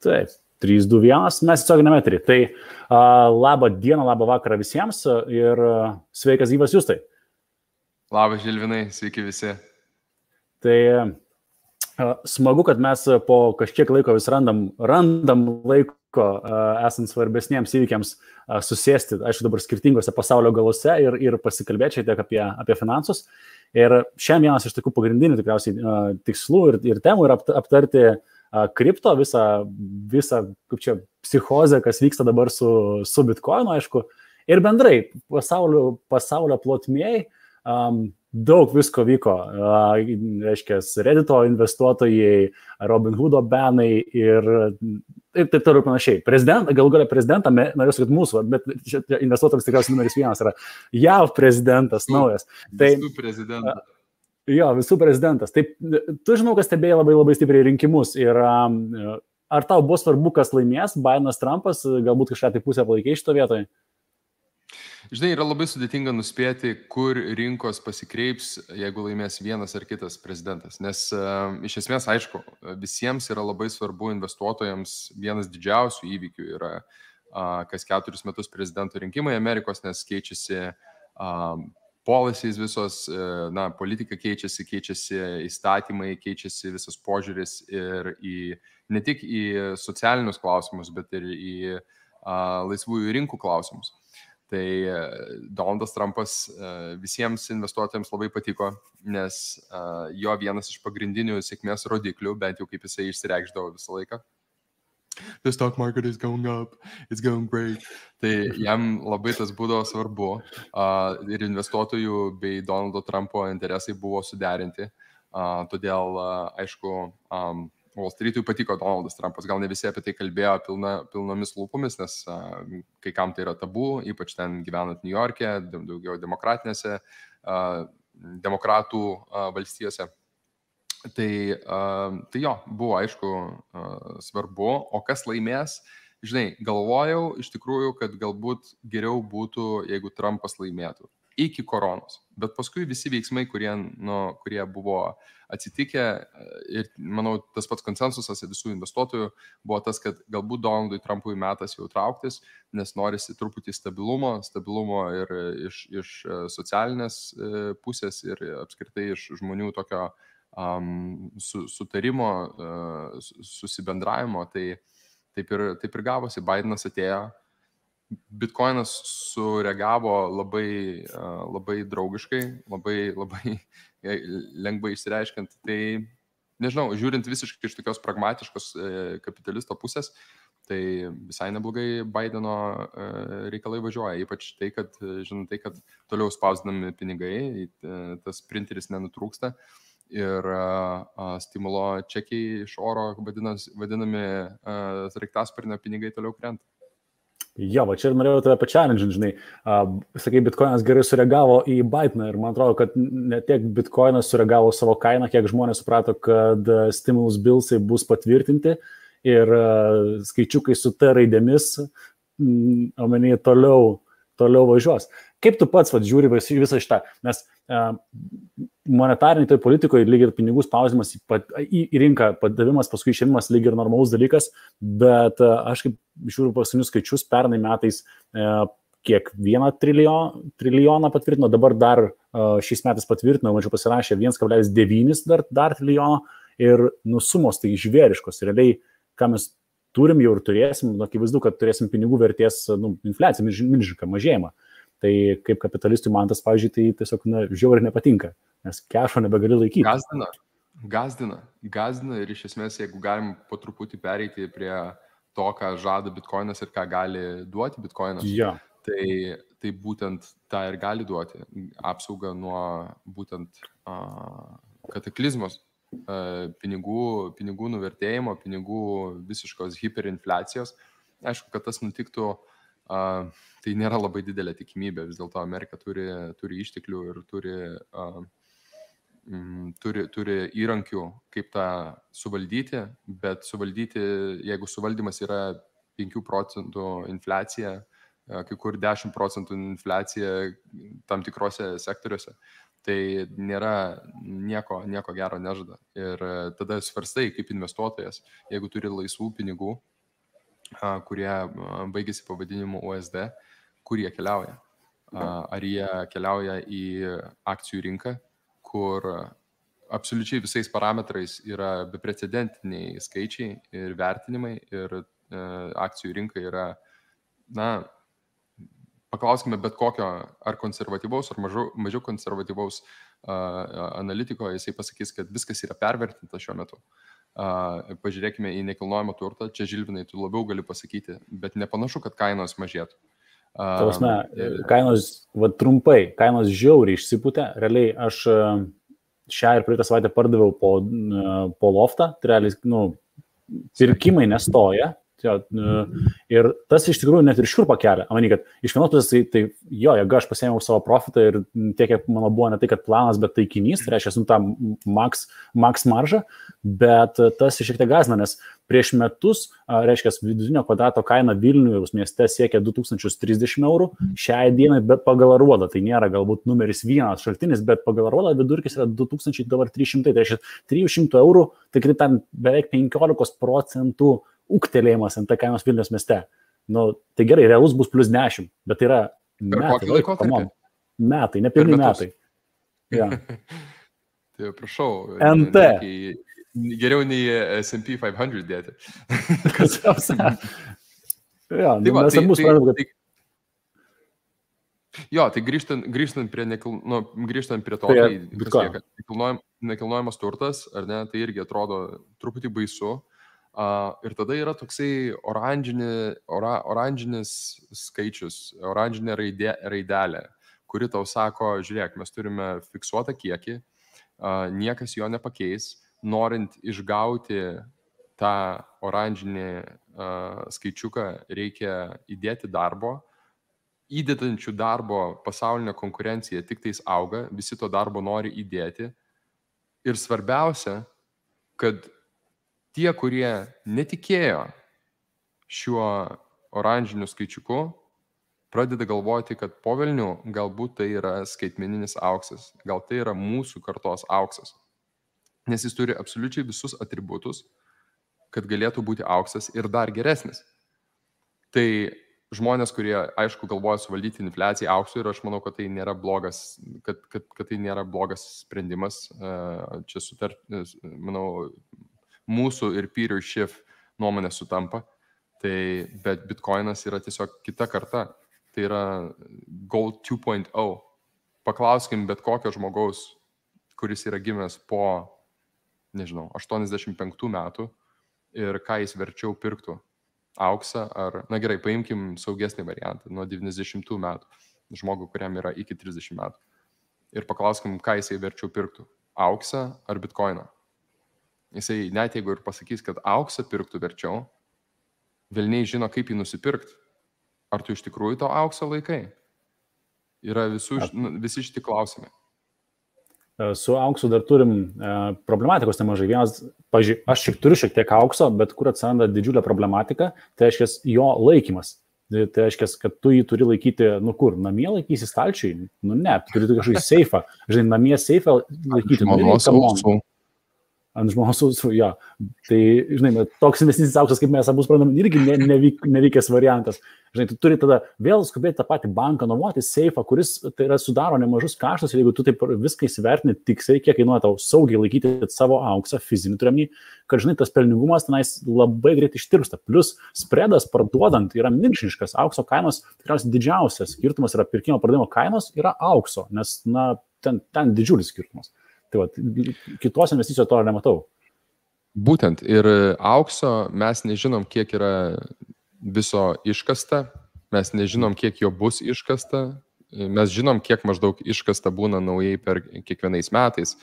Taip, 3, 2, 1, mes tiesioginiame eteryje. Tai labą dieną, labą vakarą visiems ir sveikas gyvas Justai. Labas Žilvinai, sveiki visi. Tai smagu, kad mes po kažkiek laiko vis randam laiko esant svarbesniems įvykiams susėsti, aišku, dabar skirtingose pasaulio galose ir pasikalbėti šiek tiek apie finansus. Ir šiandien vienas iš tokių pagrindinių tikriausiai tikslų ir temų yra aptarti kripto, visą kaip čia, psichozę, kas vyksta dabar su Bitcoinu, aišku, ir bendrai pasaulio plotmėj daug visko vyko, reiškia, Reddito investuotojai, Robinhoodo benai ir taip toliau panašiai. Galų galia prezidentą, norėsiu, kad mūsų, bet investuotojams tikriausiai numeris 1 yra JAV prezidentas naujas. Visų prezidentas. Jo, visų prezidentas. Taip, tu žinau, kad stebėjai labai stipriai rinkimus ir ar tau buvo svarbu, kas laimės, Bidenas, Trumpas, galbūt kažką tai pusę palaikai šito vietoje? Žinai, yra labai sudėtinga nuspėti, kur rinkos pasikreips, jeigu laimės vienas ar kitas prezidentas. Nes iš esmės, aišku, visiems yra labai svarbu investuotojams vienas didžiausių įvykių yra kas 4 metus prezidento rinkimai Amerikos, nes keičiasi policies visos, politika keičiasi įstatymai, keičiasi visas požiūris ir ne tik į socialinius klausimus, bet ir į laisvųjų rinkų klausimus. Tai Donaldas Trumpas visiems investuotojams labai patiko, nes jo vienas iš pagrindinių sėkmės rodiklių, bent jau kaip jisai išsireikšdavo visą laiką. The stock market is going up, it's going great. Tai jam labai tas būdavo svarbu ir investuotojų bei Donaldo Trumpo interesai buvo suderinti. Todėl, aišku, Wall Street'ui patiko Donaldas Trumpas. Gal ne visi apie tai kalbėjo pilnomis lūpomis, nes kai kam tai yra tabu, ypač ten gyvenant New York'e, daugiau demokratinėse, demokratų valstijose. Tai jo, buvo aišku svarbu, o kas laimės, žinai, galvojau iš tikrųjų, kad galbūt geriau būtų, jeigu Trumpas laimėtų iki koronos, bet paskui visi veiksmai, kurie buvo atsitikę ir manau tas pats konsensusas visų investuotojų buvo tas, kad galbūt Donaldui Trumpui metas jau trauktis, nes norisi truputį stabilumo ir iš socialinės pusės ir apskritai iš žmonių tokio sutarimo, susibendravimo, tai taip ir gavosi. Bidenas atėjo, Bitcoinas sureagavo labai draugiškai, labai lengvai išsireiškiant. Tai, nežinau, žiūrint visiškai iš tokios pragmatiškos kapitalisto pusės, tai visai neblogai Bideno reikalai važiuoja. Ypač tai, kad toliau spausdinami pinigai, tas printeris nenutrūksta. Ir stimulo čekiai iš oro vadinami sraigtasparnio pinigai toliau krenta. Jo, va čia ir norėjau tave pačialinti, žinai. Sakai, Bitcoinas gerai sureagavo į Bideną ir man atrodo, kad ne tiek Bitcoinas sureagavo savo kainą, kiek žmonės suprato, kad stimulus billsai bus patvirtinti ir skaičiukai su T raidėmis, omenyje, toliau važiuos. Kaip tu pats žiūri visą šitą? Nes monetarinėje politikoje lyg ir pinigų spaudimas į rinką, padavimas, paskui išėmimas lyg ir normalus dalykas, bet aš kaip žiūriu paskutinius skaičius, pernai metais kiek 1 trilijoną patvirtino, dabar dar šiais metais patvirtino, mačiau pasirašė 1,9 dar trilijono ir sumos tai žvėriškos. Realiai, ką mes turim jau ir turėsim, akivaizdu, kad turėsim pinigų vertės infliaciją, milžinišką mažėjimą. Tai kaip kapitalistui man tas, pavyzdžiui, tai tiesiog žiauriai nepatinka, nes kešo nebegali laikyti. Gazdina ir iš esmės, jeigu galim po truputį pereiti prie to, ką žada Bitcoinas ir ką gali duoti Bitcoinas, tai būtent tą ir gali duoti. Apsaugą nuo būtent kataklizmos, pinigų nuvertėjimo, pinigų visiškos hiperinfliacijos. Aišku, kad tas nutiktų, tai nėra labai didelė tikimybė. Vis dėlto Amerika turi išteklių ir turi įrankių, kaip tą suvaldyti, bet jeigu suvaldymas yra 5% infliacija, kai kur 10% infliacija tam tikrose sektoriuose, tai nėra nieko gero nežada. Ir tada svarstai kaip investuotojas, jeigu turi laisvų pinigų, kurie baigėsi pavadinimu USD, kur jie keliauja. Ar jie keliauja į akcijų rinką, kur absoliučiai visais parametrais yra beprecedentiniai skaičiai ir vertinimai ir akcijų rinka yra, paklauskime bet kokio ar konservatyvaus, ar mažiau konservatyvaus analitiko, jisai pasakys, kad viskas yra pervertinta šiuo metu. Pažiūrėkime į nekilnojamą turtą, čia Žilvinai tu labiau gali pasakyti, bet nepanašu, kad kainos mažėtų. Kainos, trumpai, kainos žiauriai išsipūtė, realiai aš šią ir praeitą savaitę pardaviau po loftą, tai realiai, pirkimai nestoja. Ir tas iš tikrųjų net ir šiurpą kelia. Manau, kad iš vienos pusės tai jeigu aš pasiėmiau savo profitą ir tiek, kiek mano buvo ne tai, kad planas, bet taikinys, tai reiškia, tą max maržą, bet tas šiek tiek gąsdina, nes prieš metus, reiškia, vidutinio kvadrato kaina Vilniaus mieste siekia 2030 eurų, šiai dienai, bet pagal Aruodą, tai nėra galbūt numeris vienas šaltinis, bet pagal Aruodą vidurkis yra 2300, tai reiškia 300 eurų, tai ten beveik 15% ūgtelėjimas ant kainos Vilniaus mieste. Tai gerai, realus bus plus 10, bet tai yra metai, nepilni metai. Ja. Tai prašau, NT. Geriau nei S&P 500 dėti. Mes abu suprantam, kad... Tai grįžtant prie to, nekilnojamas turtas, ar ne, tai irgi atrodo truputį baisu. Ir tada yra toksai oranžinis skaičius, oranžinė raidelė, kuri tau sako, žiūrėk, mes turime fiksuotą kiekį, niekas jo nepakeis, norint išgauti tą oranžinį skaičiuką reikia įdėti darbo, įdedančių darbo pasaulinė konkurencija tik tais auga, visi to darbo nori įdėti ir svarbiausia, kad tie, kurie netikėjo šiuo oranžiniu skaičiuku, pradeda galvoti, kad po velnių galbūt tai yra skaitmeninis auksas, gal tai yra mūsų kartos auksas, nes jis turi absoliučiai visus atributus, kad galėtų būti auksas ir dar geresnis. Tai žmonės, kurie, aišku, galvoja suvaldyti infliaciją auksu ir aš manau, kad tai nėra blogas, kad tai nėra blogas sprendimas. Čia manau, mūsų ir Peter Schiff nuomonė sutampa, bet Bitcoinas yra tiesiog kita karta, tai yra Gold 2.0. Paklauskim bet kokio žmogaus, kuris yra gimęs po, 85 metų ir ką jis verčiau pirktų, auksą ar, gerai, paimkim saugesnį variantą, nuo 90 metų, žmogų, kuriam yra iki 30 metų. Ir paklauskim, ką jisai verčiau pirktų, auksą ar Bitcoiną. Jisai net jeigu ir pasakys, kad auksą pirktų verčiau, velniai žino, kaip jį nusipirkti. Ar tu iš tikrųjų to aukso laikai? Yra visi šitie klausimai. Su auksu dar turim problematikos nemažai. Vienas, aš turiu šiek tiek aukso, bet kur atsiranda didžiulė problematika, tai reiškia jo laikymas. Tai reiškia, kad tu jį turi laikyti, namie laikysi stalčiui? Ne, tu turi kažkokį seifą. Namie seifą laikyti. Ant žmonos ausų, jo. Tai, toks investicinis auksas, kaip mes abu suprantam, irgi nevykęs variantas. Tu turi tada vėl skubėti tą patį banką, nuomoti seifą, kuris tai yra sudaro nemažus kaštus, ir jeigu tu taip viską įsivertini tiksliai, kiek kainuoja tau saugiai laikyti savo auksą, fizinį turimį, kad, tas pelningumas tenais labai greit ištirpsta. Plus, spredas parduodant yra milžiniškas. Aukso kainos, tikriausiai didžiausias skirtumas yra pirkimo pardavimo kainos, yra aukso, nes, ten didžiulis skirtumas. Tai kitos investicijos to nematau. Būtent. Ir aukso mes nežinom, kiek yra viso iškasta, mes nežinom, kiek jo bus iškasta, mes žinom, kiek maždaug iškasta būna naujai per kiekvienais metais.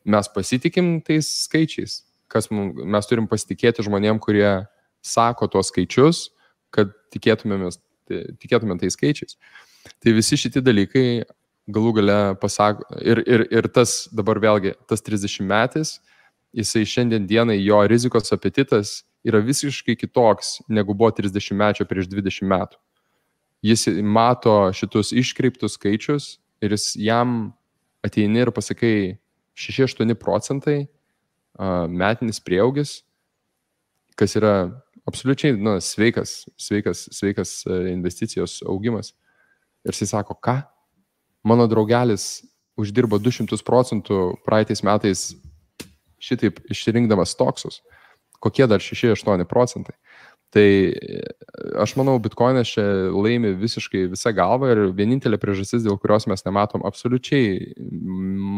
Mes pasitikim tais skaičiais. Mes turim pasitikėti žmonėm, kurie sako tuos skaičius, kad tikėtume tais skaičiais. Tai visi šitie dalykai galų gale pasako, ir tas dabar vėlgi, tas 30 metais, jisai šiandien dienai jo rizikos apetitas yra visiškai kitoks, negu buvo 30 mečio prieš 20 metų. Jis mato šitus iškreiptus skaičius ir jam ateini ir pasakai 6-8% metinis prieaugis, kas yra absoliučiai sveikas investicijos augimas. Ir jis sako, ką? Mano draugelis uždirbo 200% praeitais metais šitaip išrinkdamas stoksus. Kokie dar 6-8%? Tai aš manau, Bitcoinas čia laimi visiškai visą galvą ir vienintelė priežastis, dėl kurios mes nematom absoliučiai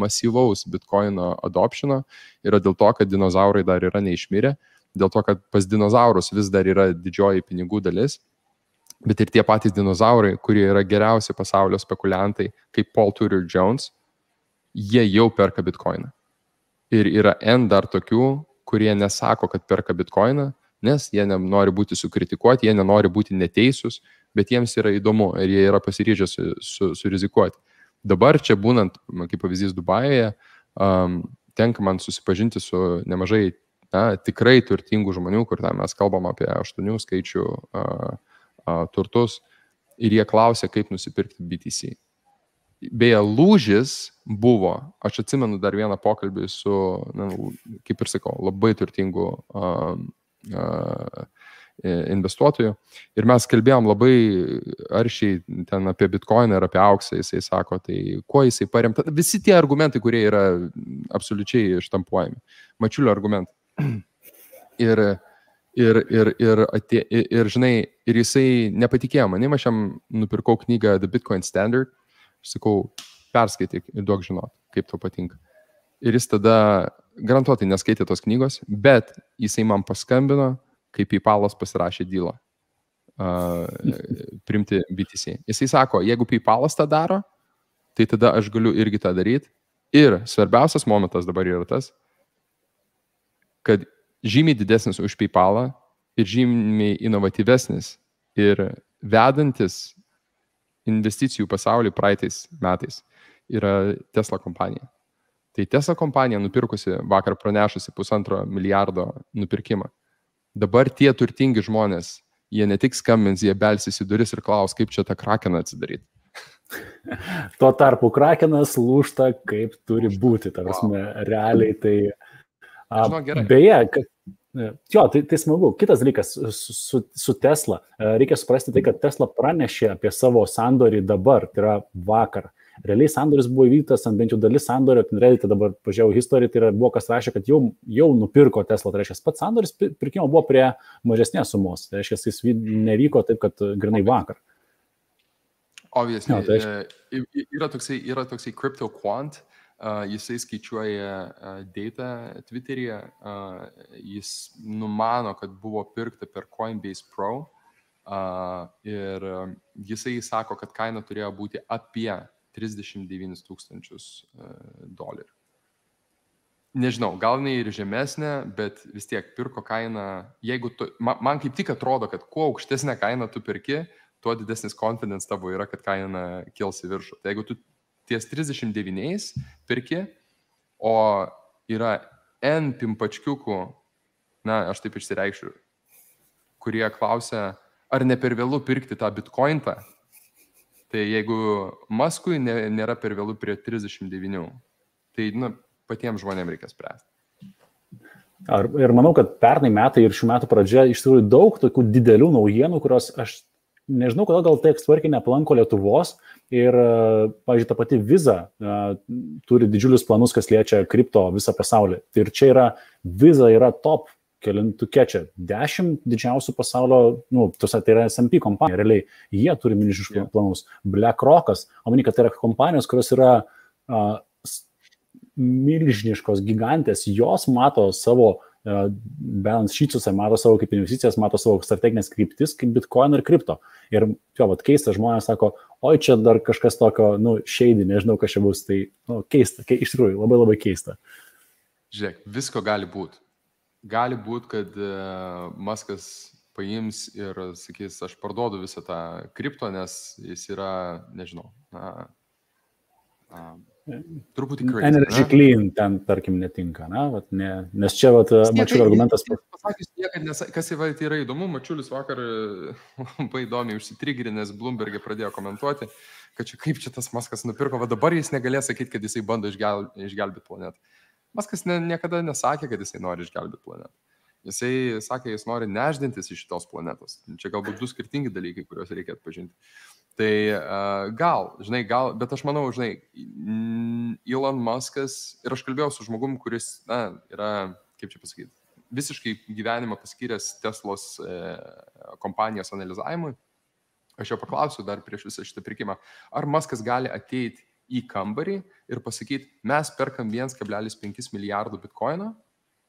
masyvaus Bitcoino adoptiono, yra dėl to, kad dinozaurai dar yra neišmirę, dėl to, kad pas dinozaurus vis dar yra didžioji pinigų dalis, bet ir tie patys dinozaurai, kurie yra geriausi pasaulio spekuliantai, kaip Paul Tudor Jones, jie jau perka Bitcoiną. Ir yra N dar tokių, kurie nesako, kad perka Bitcoiną, nes jie nenori būti sukritikuoti, jie nenori būti neteisūs, bet jiems yra įdomu ir jie yra pasiryžę surizikuoti. Dabar čia būnant, kaip pavyzdys Dubajuje, tenka man susipažinti su nemažai tikrai turtingų žmonių, kur mes kalbam apie 8 skaičių turtus ir jie klausia, kaip nusipirkti BTC. Beje, lūžis buvo, aš atsimenu dar vieną pokalbį su, kaip ir sakau, labai turtingų investuotojų ir mes kalbėjom labai aršiai ten apie Bitcoiną ir apie auksą, jisai sako, tai kuo jisai paremta, visi tie argumentai, kurie yra absoliučiai ištampuojami, mačiulio argumentai. Ir žinai, ir jisai nepatikėjo manim, aš jam nupirkau knygą The Bitcoin Standard, aš sakau, perskaityk ir duok žinot, kaip tau patinka. Ir jis tada garantuotai neskaitė tos knygos, bet jisai man paskambino, kai PayPalas pasirašė dylą priimti BTC. Jisai sako, jeigu PayPalas tą daro, tai tada aš galiu irgi tą daryti. Ir svarbiausias momentas dabar yra tas, kad žymiai didesnis už PayPalą ir žymiai inovatyvesnis ir vedantis investicijų pasaulį praeitais metais yra Tesla kompanija. Tai Tesla kompanija nupirkusi, vakar pranešusi $1,5 milijardo nupirkimą. Dabar tie turtingi žmonės, jie ne tik skambins, jie belsis į duris ir klaus, kaip čia tą krakeną atsidaryti. Tuo tarpu krakenas lūžta, kaip turi būti. Ta prasme, realiai tai... Beje, tai smagu. Kitas dalykas su Tesla. Reikia suprasti tai, kad Tesla pranešė apie savo sandorį dabar, tai yra vakar. Realiai sandoris buvo įvyktas, bent jau dalis sandorio, tai dabar pažiūrėjau istoriją, tai buvo kas rašė, kad jau nupirko Tesla, tai reiškia, pats sandoris pirkimo buvo prie mažesnės sumos, tai reiškia, jis nevyko taip, kad grinai vakar. Obviously, yra toksai crypto quant, jisai skaičiuoja data Twitteryje, jis numano, kad buvo pirkta per Coinbase Pro ir jisai sako, kad kaina turėjo būti apie $39,000. Nežinau, gal ne ir žemesnė, bet vis tiek pirko kainą, jeigu man kaip tik atrodo, kad kuo aukštesnė kaina tu pirki, tuo didesnis confidence tavo yra, kad kaina kils į viršų. Tai jeigu tu ties 39 pirki, o yra N pimpačkiukų, aš taip išsireikšiu, kurie klausia, ar ne per vėlu pirkti tą bitcointą, tai jeigu Muskui nėra per vėlu prie 39, tai patiems žmonėms reikia spręsti. Ir manau, kad pernai metai ir šių metų pradžia iš tikrųjų daug tokių didelių naujienų, kurios aš nežinau, kodėl gal taip tvarkiai neplanko Lietuvos ir, pavyzdžiui, ta pati Visa turi didžiulius planus, kas liečia kripto visą pasaulį. Ir čia Visa yra top kelintukė čia 10 didžiausių pasaulio, tai yra S&P kompanija, realiai jie turi milžiniškus planus. BlackRockas, omeny, kad tai yra kompanijos, kurios yra milžiniškos gigantės, jos mato savo balance sheet'uose, mato savo kaip investicijas, mato savo strateginės kryptis, kaip Bitcoin ir kripto. Ir keista, žmonės sako, oi čia dar kažkas tokio, shady, nežinau, kas čia bus, tai keista, iš tikrųjų, labai labai keista. Žiūrėk, visko gali būti. Gali būti, kad Muskas paims ir sakys, aš parduodu visą tą kripto, nes jis yra, nežinau, truputį crazy. Energy clean ten, tarkim, netinka, nes čia Mačiulio argumentas. Pasakysiu niekad, kas yra įdomu, Mačiulis vakar labai įdomiai užsitrigrinęs Bloomberg'e pradėjo komentuoti, kad čia kaip čia tas Muskas nupirko, va dabar jis negalės sakyti, kad jisai bando išgelbėti planetą. Muskas niekada nesakė, kad jisai nori išgelbėti planetą. Jisai sakė, jis nori neždintis iš šitos planetos. Čia galbūt du skirtingi dalykai, kuriuos reikia atpažinti. Tai gal, bet aš manau, Elon Muskas, ir aš kalbėjau su žmogum, kuris, yra, kaip čia pasakyti, visiškai gyvenimą paskyręs Teslos kompanijos analizavimui. Aš jo paklausiu dar prieš visą šitą pirkimą, ar Muskas gali ateiti į kambarį ir pasakyti, mes perkam 1,5 milijardų bitkoino,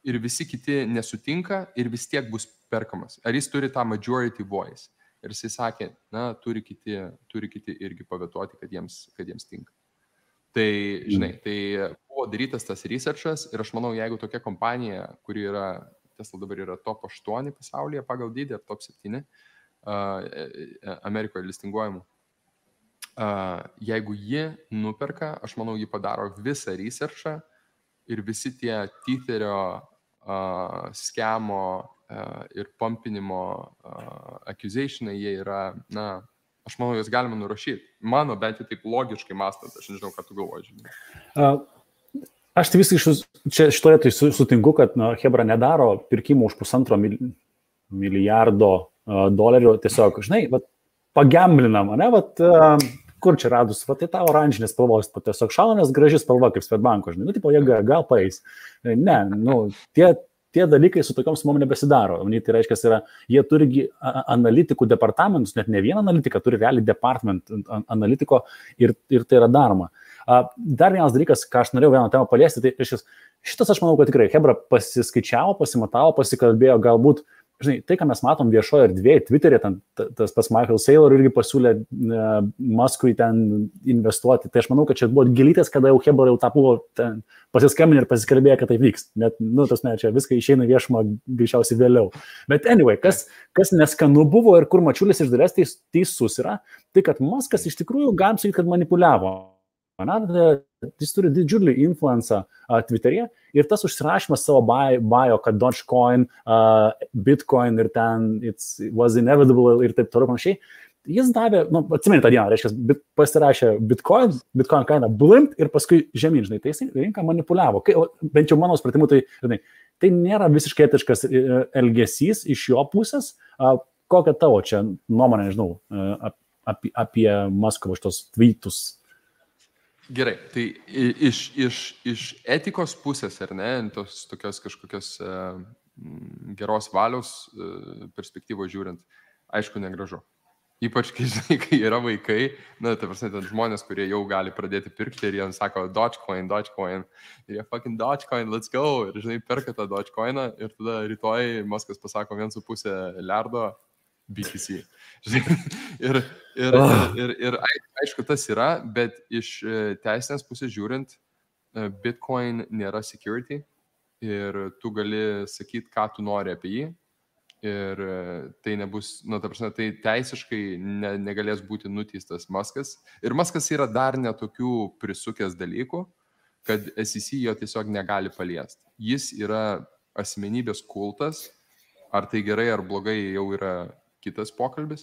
ir visi kiti nesutinka ir vis tiek bus perkamas. Ar jis turi tą majority voice? Ir jisai sakė, turi kiti irgi pavetuoti, kad jiems tinka. Tai, tai buvo darytas tas researchas ir aš manau, jeigu tokia kompanija, kuri yra, Tesla dabar yra top 8 pasaulyje pagal dydį, ar top 7 Amerikoje listinguojamų, jeigu ji nuperka, aš manau, ji padaro visą researchą ir visi tie Tetherio skemo ir pumpinimo accusationai, jie yra, aš manau, juos galima nurašyti. Mano, bent jau taip logiškai mąstant, aš nežinau, ką tu galvoji. Aš tai visiškai čia šitoje tai sutinku, kad Hebra nedaro pirkimų už $1,5 milijardo dolerių, tiesiog, pagamblinam, kur čia radus, tai ta oranžinė spalvos, tiesiog šaunės graži spalva, kaip Swedbanko, jie gal paeis. Ne, tie dalykai su tokiom sumom nebesidaro. Tai reiškia, jie turi analitikų departamentus, net ne vieną analitiką, turi realiai department analitiko ir tai yra daroma. Dar vienas dalykas, ką aš norėjau vieną temą paliesti, tai šitas aš manau, kad tikrai Hebra pasiskaičiavo, pasimatavo, pasikalbėjo, galbūt tai, ką mes matom viešoje erdvėje, Twitter'e, tas pats Michael Saylor irgi pasiūlė Muskui ten investuoti. Tai aš manau, kad čia buvo gelytės, kada jau Hebra jau tą buvo pasiskambinę ir pasikalbėjo, kad tai vyks. Net, čia viską išeina viešumą greičiausiai vėliau. Bet anyway, kas neskanu buvo ir kur Mačiulis iš dalies teisus yra, tai kad Muskas iš tikrųjų galim sakyti, kad manipuliavo. Jis turi didžiulį influencą Twitter'e ir tas užsirašymas savo bio, kad Dogecoin, Bitcoin ir ten it was inevitable ir taip toliau panašiai, jis davė, atsimeni tą dieną, reiškia, pasirašė Bitcoin kaina blimpt ir paskui žemyn, tai jis rinką manipuliavo. Bent jau mano supratimu, tai nėra visiškai etiškas elgesys iš jo pusės. Kokia tavo čia nuomonė, nežinau, apie Musko šitos tweetus? Gerai, tai iš etikos pusės, ar ne, tos tokios kažkokios geros valios perspektyvos žiūrint, aišku, negražu. Ypač, kai yra vaikai, žmonės, kurie jau gali pradėti pirkti ir jie sako Dogecoin, ir jie fucking Dogecoin, let's go, ir perka tą Dogecoiną ir tada rytoj Muskas pasako 1,5 milijardo BTC. Ir aišku, tas yra, bet iš teisinės pusės žiūrint, Bitcoin nėra security ir tu gali sakyti, ką tu nori apie jį ir tai nebus, tai teisiškai negalės būti nuteistas Muskas. Ir Muskas yra dar netokių prisukęs dalykų, kad SEC jo tiesiog negali paliesti. Jis yra asmenybės kultas, ar tai gerai ar blogai jau yra kitas pokalbis,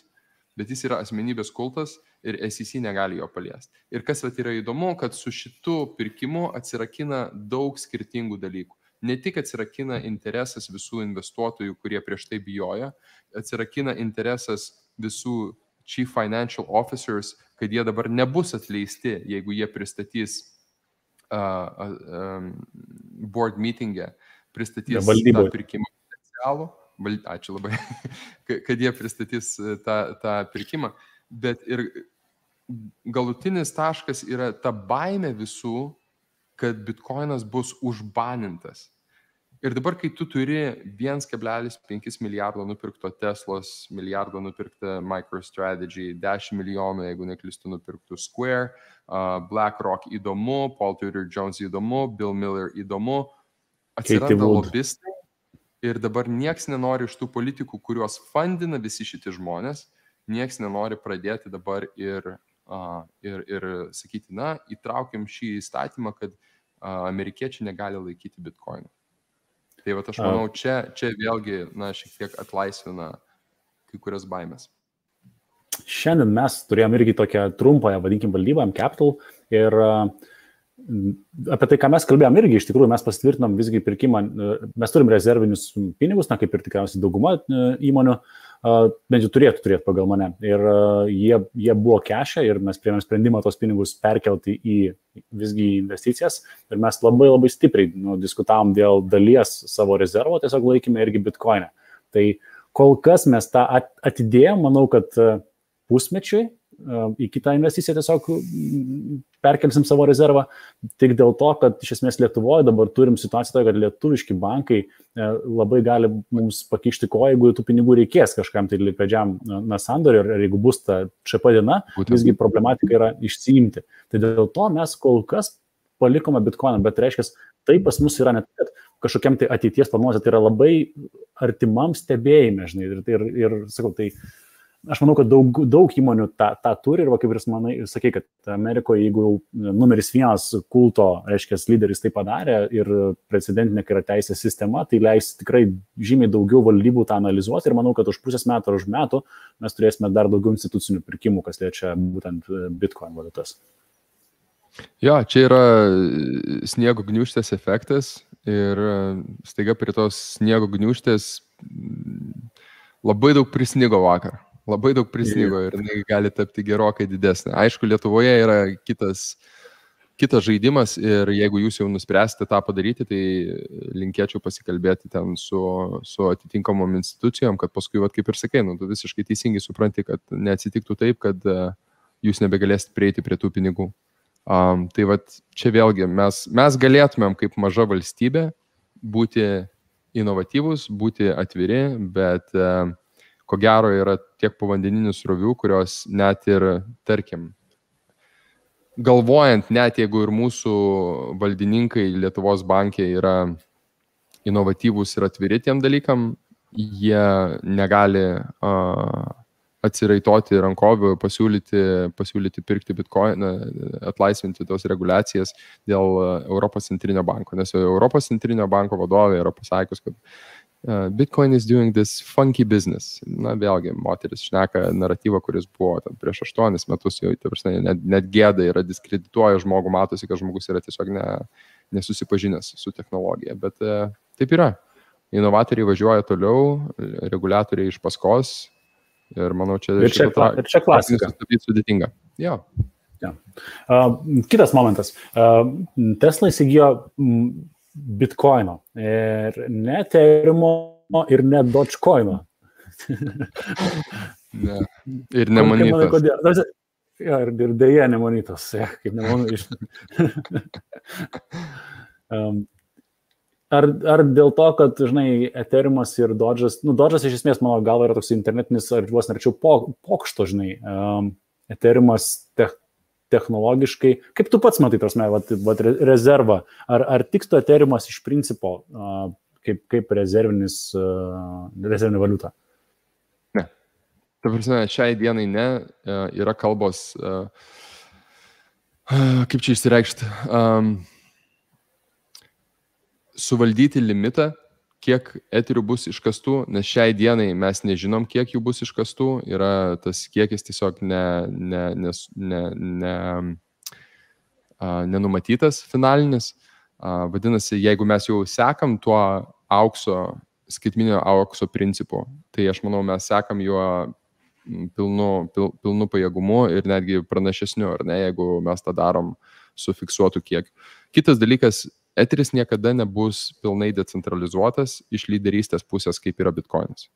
bet jis yra asmenybės kultas ir SEC negali jo paliesti. Ir kas yra įdomu, kad su šitu pirkimu atsirakina daug skirtingų dalykų. Ne tik atsirakina interesas visų investuotojų, kurie prieš tai bijojo, atsirakina interesas visų chief financial officers, kad jie dabar nebus atleisti, jeigu jie pristatys board meeting'e, pristatys tą pirkimą potencialų. Ačiū labai, kad jie pristatys tą pirkimą, bet ir galutinis taškas yra ta baimė visų, kad Bitcoinas bus užbanintas. Ir dabar, kai tu turi 1,5 milijardo nupirkto Teslos, milijardo nupirkta MicroStrategy, 10 milijonų, jeigu neklystu, nupirktų Square, BlackRock įdomu, Paul Tudor Jones įdomu, Bill Miller įdomu, atsiranda lobistai. Ir dabar nieks nenori iš tų politikų, kuriuos fundina visi šitie žmonės, nieks nenori pradėti dabar ir sakyti, įtraukiam šį įstatymą, kad amerikiečiai negali laikyti Bitcoino. Tai aš manau, čia vėlgi, šiek tiek atlaisvina kai kurias baimės. Šiandien mes turėjom irgi tokią trumpąją, vadinkim, valdybą, Capital, ir apie tai, ką mes kalbėjom, irgi iš tikrųjų mes pasitvirtinom visgi pirkimą, mes turim rezervinius pinigus, kaip ir tikriausiai dauguma įmonių, bent jau turėtų turėti pagal mane. Ir jie buvo kešę ir mes priėmėm sprendimą tos pinigus perkelti į visgi investicijas. Ir mes labai labai stipriai diskutavom dėl dalies savo rezervo, tiesiog laikėme irgi bitcoinę. Tai kol kas mes tą atidėjom, manau, kad pusmečiui į kitą investiciją tiesiog perkelsim savo rezervą, tik dėl to, kad iš esmės Lietuvoje dabar turim situaciją, kad lietuviški bankai labai gali mums pakišti koją, jeigu tų pinigų reikės kažkam tai likvidžiam sandoriui, ir jeigu bus ta ČP diena, visgi problematika yra išsiimti. Tai dėl to mes kol kas palikome bitcoiną, bet reiškia, tai pas mus yra net kažkokiam tai ateities planuose, tai yra labai artimam stebėjime, žinai, ir sakau, tai aš manau, kad daug įmonių tą turi ir, kaip ir sakai, kad Amerikoje, jeigu numeris 1 kulto, reiškia, lyderis tai padarė ir precedentinė yra teisės sistema, tai leis tikrai žymiai daugiau valdybų tą analizuoti ir manau, kad už pusės metų ar už metų mes turėsime dar daugiau institucinių pirkimų, kas liečia būtent Bitcoin valiutas. Jo, čia yra sniego gniūžtės efektas ir staiga prie tos sniego gniūžtės labai daug prisnigo vakar. Labai daug prisnigo ir gali tapti gerokai didesnė. Aišku, Lietuvoje yra kitas žaidimas ir jeigu jūs jau nuspręsite tą padaryti, tai linkėčiau pasikalbėti ten su atitinkamom institucijom, kad paskui, kaip ir sakai, tu visiškai teisingai supranti, kad neatsitiktų taip, kad jūs nebegalėsite prieiti prie tų pinigų. Tai čia vėlgi mes galėtumėm kaip maža valstybė būti inovatyvūs, būti atviri, bet ko gero yra tiek povandeninių srovių, kurios net ir, tarkim, galvojant, net jeigu ir mūsų valdininkai Lietuvos banke yra inovatyvūs ir atviri tiem dalykam, jie negali atsiraitoti rankovių, pasiūlyti pirkti bitcoin, atlaisvinti tos reguliacijas dėl Europos centrinio banko. Nes Europos centrinio banko vadovė yra pasakius, kad Bitcoin is doing this funky business. Na, vėlgi, moteris šneka naratyvą, kuris buvo prieš 8 metus, jau net gėda yra, diskredituoja žmogų, matosi, kad žmogus yra tiesiog nesusipažinęs su technologija. Bet taip yra. Inovatoriai važiuoja toliau, reguliatoriai iš paskos ir manau, čia klasika. Sudėtinga. Jo. Ja. Kitas momentas. Tesla įsigijo Bitcoino ir ne Ethereumo ir ne Dogecoino. Ne. Ir nemanytas. Ir dėja nemanytas. Kaip nemanau. Ar dėl to, kad, žinai, Ethereumas ir Doge'as, Doge'as iš esmės, mano galva, yra toks internetinis, ar vos nerčiau pokšto, žinai, Ethereumas technologiškai, kaip tu pats matai, prasme, rezervą, ar tiktų Ethereumas iš principo kaip rezervinė valiuta? Ne. Ta prasme, šiai dienai ne, yra kalbos, kaip čia išsireikšti, suvaldyti limitą, kiek eterių bus iškastų, nes šiai dienai mes nežinom, kiek jų bus iškastų, yra tas kiekis tiesiog nenumatytas finalinis. Vadinasi, jeigu mes jau sekam tuo skaitminio aukso principu, tai aš manau, mes sekam juo pilnu pajėgumu ir netgi pranašesniu, ar ne, jeigu mes tą darom su fiksuotu kiekiu. Kitas dalykas, Eteris niekada nebus pilnai decentralizuotas iš lyderystės pusės, kaip yra Bitcoinas.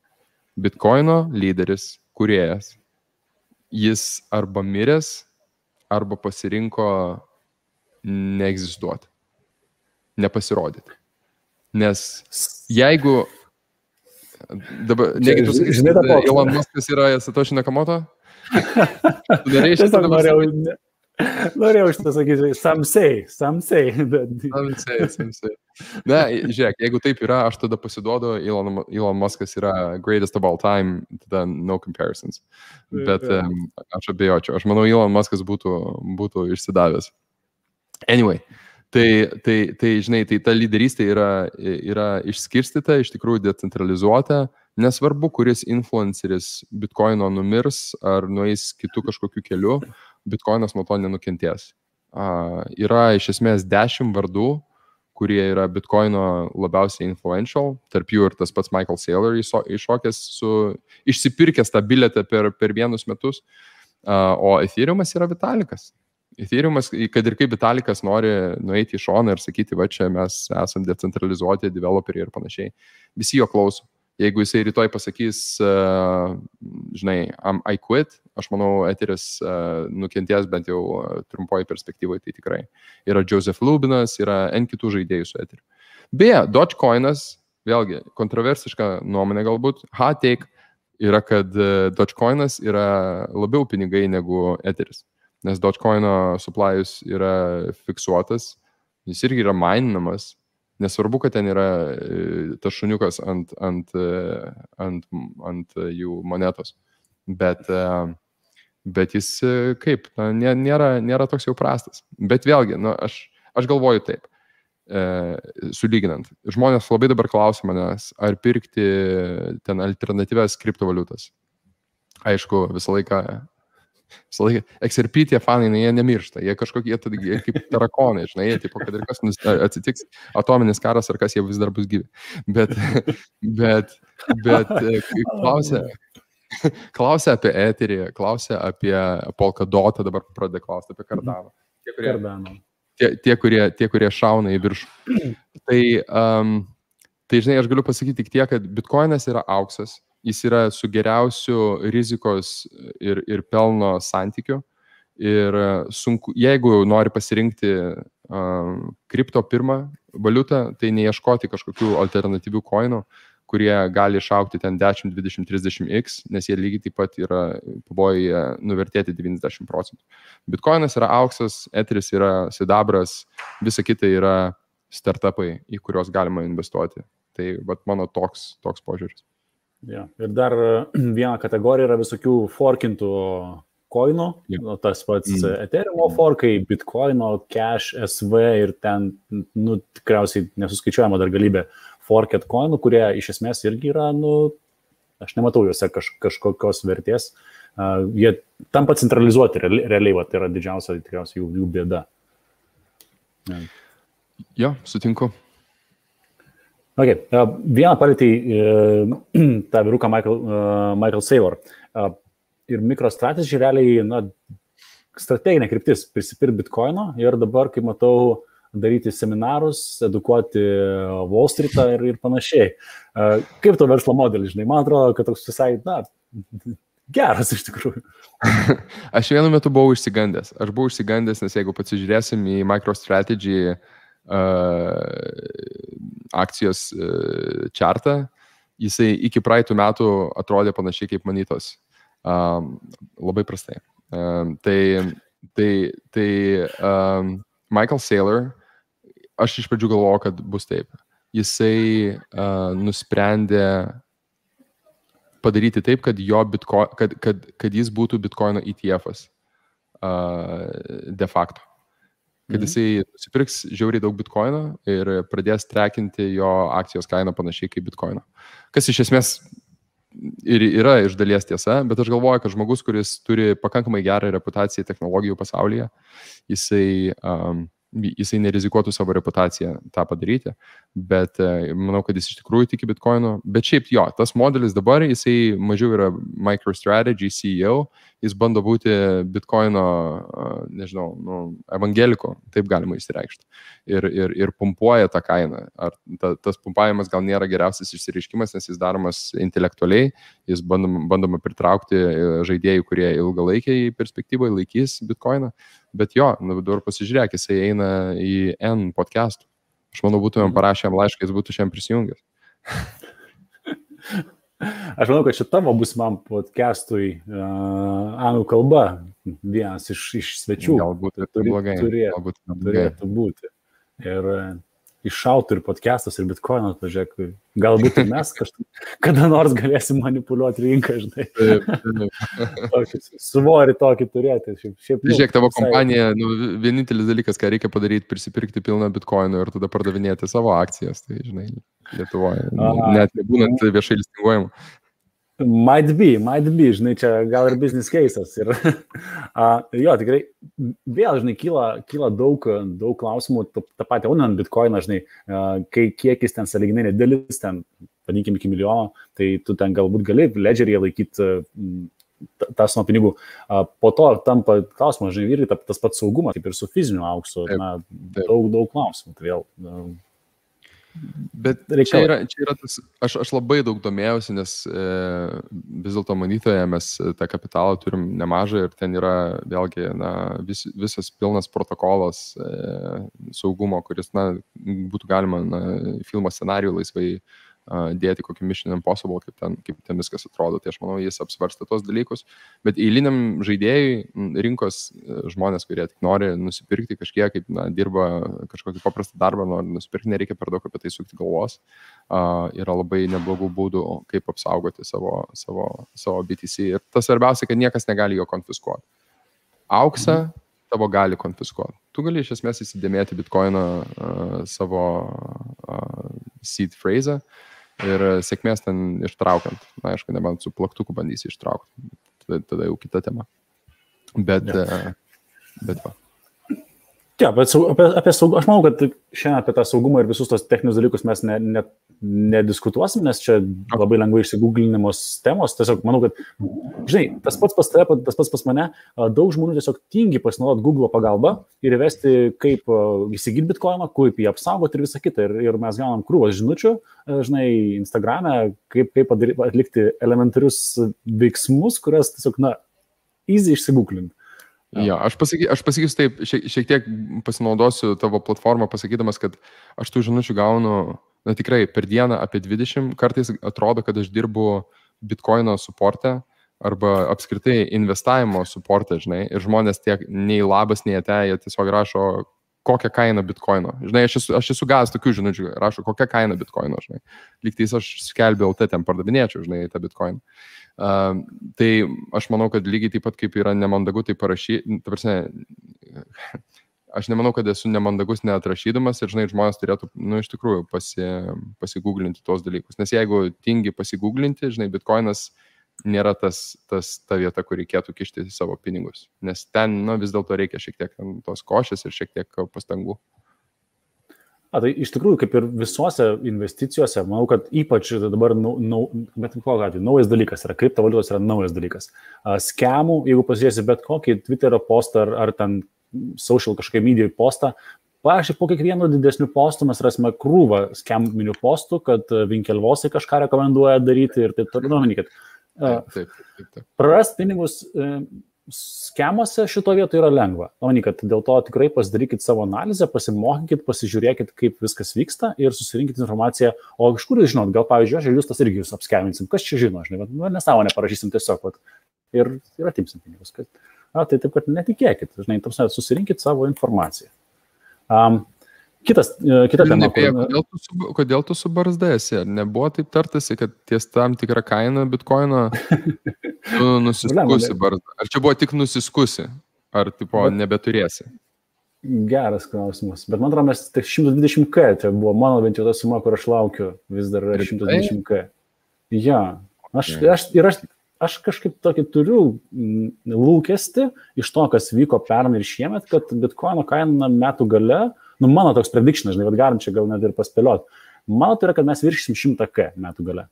Bitcoino lyderis, kūrėjas, jis arba miręs, arba pasirinko neegzistuoti, nepasirodyti. Nes jeigu dabar, negi tu sakysi, kad Elon Muskas yra Satoshi Nakamoto? Norėjau šitą sakyti, some say. Some say. Ne, žiūrėk, jeigu taip yra, aš tada pasiduodu, Elon Muskas yra greatest of all time, tada no comparisons. Bet aš abejočiau. Aš manau, Elon Muskas būtų išsidavęs. Anyway, tai žinai, tai ta lyderystė yra išskirstyta, iš tikrųjų decentralizuota. Nesvarbu, kuris influenceris Bitcoino numirs ar nueis kitų kažkokiu keliu, Bitcoinas nuo to nenukentės. yra iš esmės 10 vardų, kurie yra Bitcoino labiausiai influential, tarp jų ir tas pats Michael Saylor iššokęs išsipirkęs tą bilietą per 1 metus, o Ethereumas yra Vitalikas. Ethereumas, kad ir kaip Vitalikas nori nueiti į šoną ir sakyti, va čia mes esam decentralizuoti developeriai ir panašiai, visi jo klauso. Jeigu jisai rytoj pasakys, žinai, I quit, aš manau, Ethereus nukenties bent jau trumpoji perspektyvoje, tai tikrai. Yra Joseph Lubinas, yra N kitų žaidėjų su Ethereum. Beje, Dogecoinas, vėlgi, kontroversiška nuomonė galbūt, hot take yra, kad Dogecoinas yra labiau pinigai negu Ethereus, nes Dogecoino supply'us yra fiksuotas, jis irgi yra maininamas. Nesvarbu, kad ten yra tas šuniukas ant jų monetos, bet jis kaip, nėra toks jau prastas. Bet vėlgi, aš galvoju taip, sulyginant. Žmonės labai dabar klausia manęs, ar pirkti ten alternatyvias kriptovaliutas. Aišku, visą laiką XRP tie fanai, jie nemiršta, jie kažkokie jie kaip tarakonai, žinai, jie tipo, kad ir kas atsitiks, atominis karas ar kas, jie vis dar bus gyvi. Bet klausia apie Etherį, klausia apie Polkadotą, dabar pradeda klausti apie Cardano. Tie, kurie šauna į viršų. Tai, žinai, aš galiu pasakyti tik tiek, kad Bitcoinas yra auksas. Jis yra su geriausiu rizikos ir pelno santykiu. Ir sunku, jeigu nori pasirinkti kripto pirmą valiutą, tai neieškoti kažkokių alternatyvių coinų, kurie gali išaukti ten 10, 20, 30x, nes jie lygiai taip pat yra pavojuje nuvertėti 90%. Bitcoinas yra auksas, Ethereus yra sidabras, visa kita yra startupai, į kuriuos galima investuoti. Tai mano toks požiūris. Ja. Ir dar viena kategorija yra visokių forkintų coinų, tas pats Ethereum forkai, Bitcoino, Cash, SV ir ten, tikriausiai nesuskaičiuojama dar galybė forket coinų, kurie iš esmės irgi yra, aš nematau juose kažkokios vertės. Jie tampa centralizuoti realiai, tai yra didžiausia tikriausiai jų bėda. Jo, sutinku. Okay. Vieną palėtį tą vyruką Michael Saylor. Ir MicroStrategy realiai, strateginė kryptis prisipirkti Bitcoino ir dabar, kaip matau, daryti seminarus, edukuoti Wall Street'ą ir panašiai. Kaip to verslo modelis, žinai? Man atrodo, kad toks visai, geras iš tikrųjų. Aš vienu metu buvau išsigandęs. Nes jeigu pasižiūrėsim į MicroStrategy akcijos chartą, jisai iki praeitų metų atrodė panašiai kaip Manitos. Labai prastai. Tai Michael Saylor, aš iš pradžių galvojau, kad bus taip. Jisai nusprendė padaryti taip, kad jis būtų Bitcoino ETF-as de facto. Kad jisai nusipirks žiauriai daug Bitcoino ir pradės trekinti jo akcijos kainą panašiai kaip Bitcoino. Kas iš esmės ir yra iš dalies tiesa, bet aš galvoju, kad žmogus, kuris turi pakankamai gerą reputaciją technologijų pasaulyje, jisai nerizikuotų savo reputaciją tą padaryti, bet manau, kad jis iš tikrųjų tiki Bitcoino. Bet šiaip jo, tas modelis dabar, jisai mažiau yra MicroStrategy CEO, jis bando būti Bitcoino, nežinau, evangeliko, taip galima išsireikšti. Ir pumpuoja tą kainą. Ar tas pumpavimas gal nėra geriausias išsireiškimas, nes jis daromas intelektualiai, jis bandoma pritraukti žaidėjų, kurie ilgalaikiai perspektyvoje laikys Bitcoiną. Bet jo, dabar pasižiūrėk, jisai eina į N podcastų. Aš manau, būtumėm parašę jam laišką, jis būtų šiandien prisijungęs. Aš manau, kad šitavo būsimam podcastui anglų kalba vienas iš svečių. Galbūt blogai. Turėtų būti. Ir iššautų ir podcastas, ir Bitcoinas, pažiūrėk, galbūt ir mes kada nors galėsim manipuliuoti rinką, žinai. Svorį tokį turėti. Žiūrėk, tavo kompanija, vienintelis dalykas, ką reikia padaryti, prisipirkti pilną Bitcoinų ir tada pardavinėti savo akcijas, tai, žinai, Lietuvoje, net nebūnant viešai listinguojamų. Might be, žinai, čia gal ir business cases. Ir, jo, tikrai, vėl, žinai, kyla daug klausimų, tą patį aunant bitcoiną, žinai, kiek jis ten sąlyginai nedidelis, ten, vadinkim, iki milijono, tai tu ten galbūt gali ledgeryje laikyti tą sumą pinigų. Po to tampa klausimas, žinai, irgi tas pats saugumas, kaip ir su fiziniu auksu, na, daug klausimų. Tai vėl... Bet čia yra tas, aš labai daug domėjausi, nes vis dėlto manytoje mes tą kapitalą turim nemažai ir ten yra vėlgi visas pilnas protokolas saugumo, kuris būtų galima filmo scenarijų laisvai dėti kokį Mission Impossible, kaip ten viskas atrodo. Tai aš manau, jis apsvarsta tos dalykus. Bet eiliniam žaidėjui, rinkos žmonės, kurie tik nori nusipirkti kažkiek, kaip dirba kažkokį paprastą darbą, nori nusipirkti, nereikia per daug apie tai sukti galvos. Yra labai neblogų būdų, kaip apsaugoti savo BTC. Ir tas svarbiausia, kad niekas negali jo konfiskuoti. Auksą tavo gali konfiskuoti. Tu gali iš esmės įsidėmėti bitcoiną savo seed phrase ir sėkmės ten ištraukiant. Na, aišku, nebent su plaktuku bandysi ištraukti. Tada jau kita tema. Bet va. Ja, bet apie saugumą, aš manau, kad šiandien apie tą saugumą ir visus tos techninius dalykus mes nediskutuosim, nes čia labai lengvai išsigūglinimos temos. Tiesiog manau, kad, žinai, tas pats pas tave, tas pats pas mane, daug žmonių tiesiog tingi pasinaudoti Google pagalbą ir įvesti, kaip įsigyti bitcoiną, kaip jį apsaugoti ir visą kitą. Ir mes gaunam krūvas žinučių, žinai, Instagrame, kaip atlikti elementarius veiksmus, kurias tiesiog, easy išsigūglinti. Ja, aš pasakysiu taip, šiek tiek pasinaudosiu tavo platformą, pasakydamas, kad aš tų žinučių gaunu, tikrai per dieną apie 20, kartais atrodo, kad aš dirbu bitcoino suporte arba apskritai investavimo suporte, žinai, ir žmonės tiek nei labas, nei ate, jie tiesiog rašo, kokią kainą bitcoino. Žinai, aš esu gavęs tokių žinučių, rašo, kokią kainą bitcoino, žinai. Lygtais aš skelbiau, ten pardavinėčiau, žinai, tą bitcoiną. Tai aš manau, kad lygiai taip pat kaip yra nemandagu tai parašyti, aš nemanau, kad esu nemandagus neatrašydamas ir, žinai, žmonės turėtų, iš tikrųjų pasigūglinti tos dalykus, nes jeigu tingi pasigūglinti, žinai, bitcoinas nėra ta vieta, kur reikėtų kišti savo pinigus, nes ten, vis dėlto reikia šiek tiek tos košės ir šiek tiek pastangų. Tai iš tikrųjų, kaip ir visuose investicijose, manau, kad ypač dabar naujas dalykas yra, kriptovaliutos yra naujas dalykas. Skemų, jeigu pasižiūrėsi bet kokį Twitterio postą ar ten social kažkokią media postą, pavyzdžiui, po kiekvieno didesnių postų mes rasime krūvą skeminių postų, kad Winkelvosai kažką rekomenduoja daryti ir taip toliau. Taip. Prarast pinigus skemuose šito vietoje yra lengva. Kad dėl to tikrai pasidarykit savo analizę, pasimokykit, pasižiūrėkit, kaip viskas vyksta ir susirinkit informaciją. O iš kur jūs žinot, gal pavyzdžiui, aš ir jūs tas irgi jūs apskeminsim. Kas čia žino, žinai, nesąmonę parašysim tiesiog ir atimsim pinigus. Tai taip, kad netikėkit, žinai, susirinkit savo informaciją. Kita tema. Kodėl tu su barzda esi? Nebuvo taip tartasi, kad ties tam tikrą kainą bitcoino tu nusiskusi barzdą? Ar čia buvo tik nusiskusi? Ar tipo nebeturėsi? Geras klausimas. Bet man atrodo, mes tik 120K, tai buvo mano bent jau ta suma, kur aš laukiu, vis dar 120K. Ja, aš kažkaip tokį turiu lūkestį iš to, kas vyko pernai ir šiemet, kad bitcoino kaina metų gale, mano toks prediction, žinai, bet galim čia gal net ir paspėliot. Mano tai yra, kad mes viršysim 100K metų gale.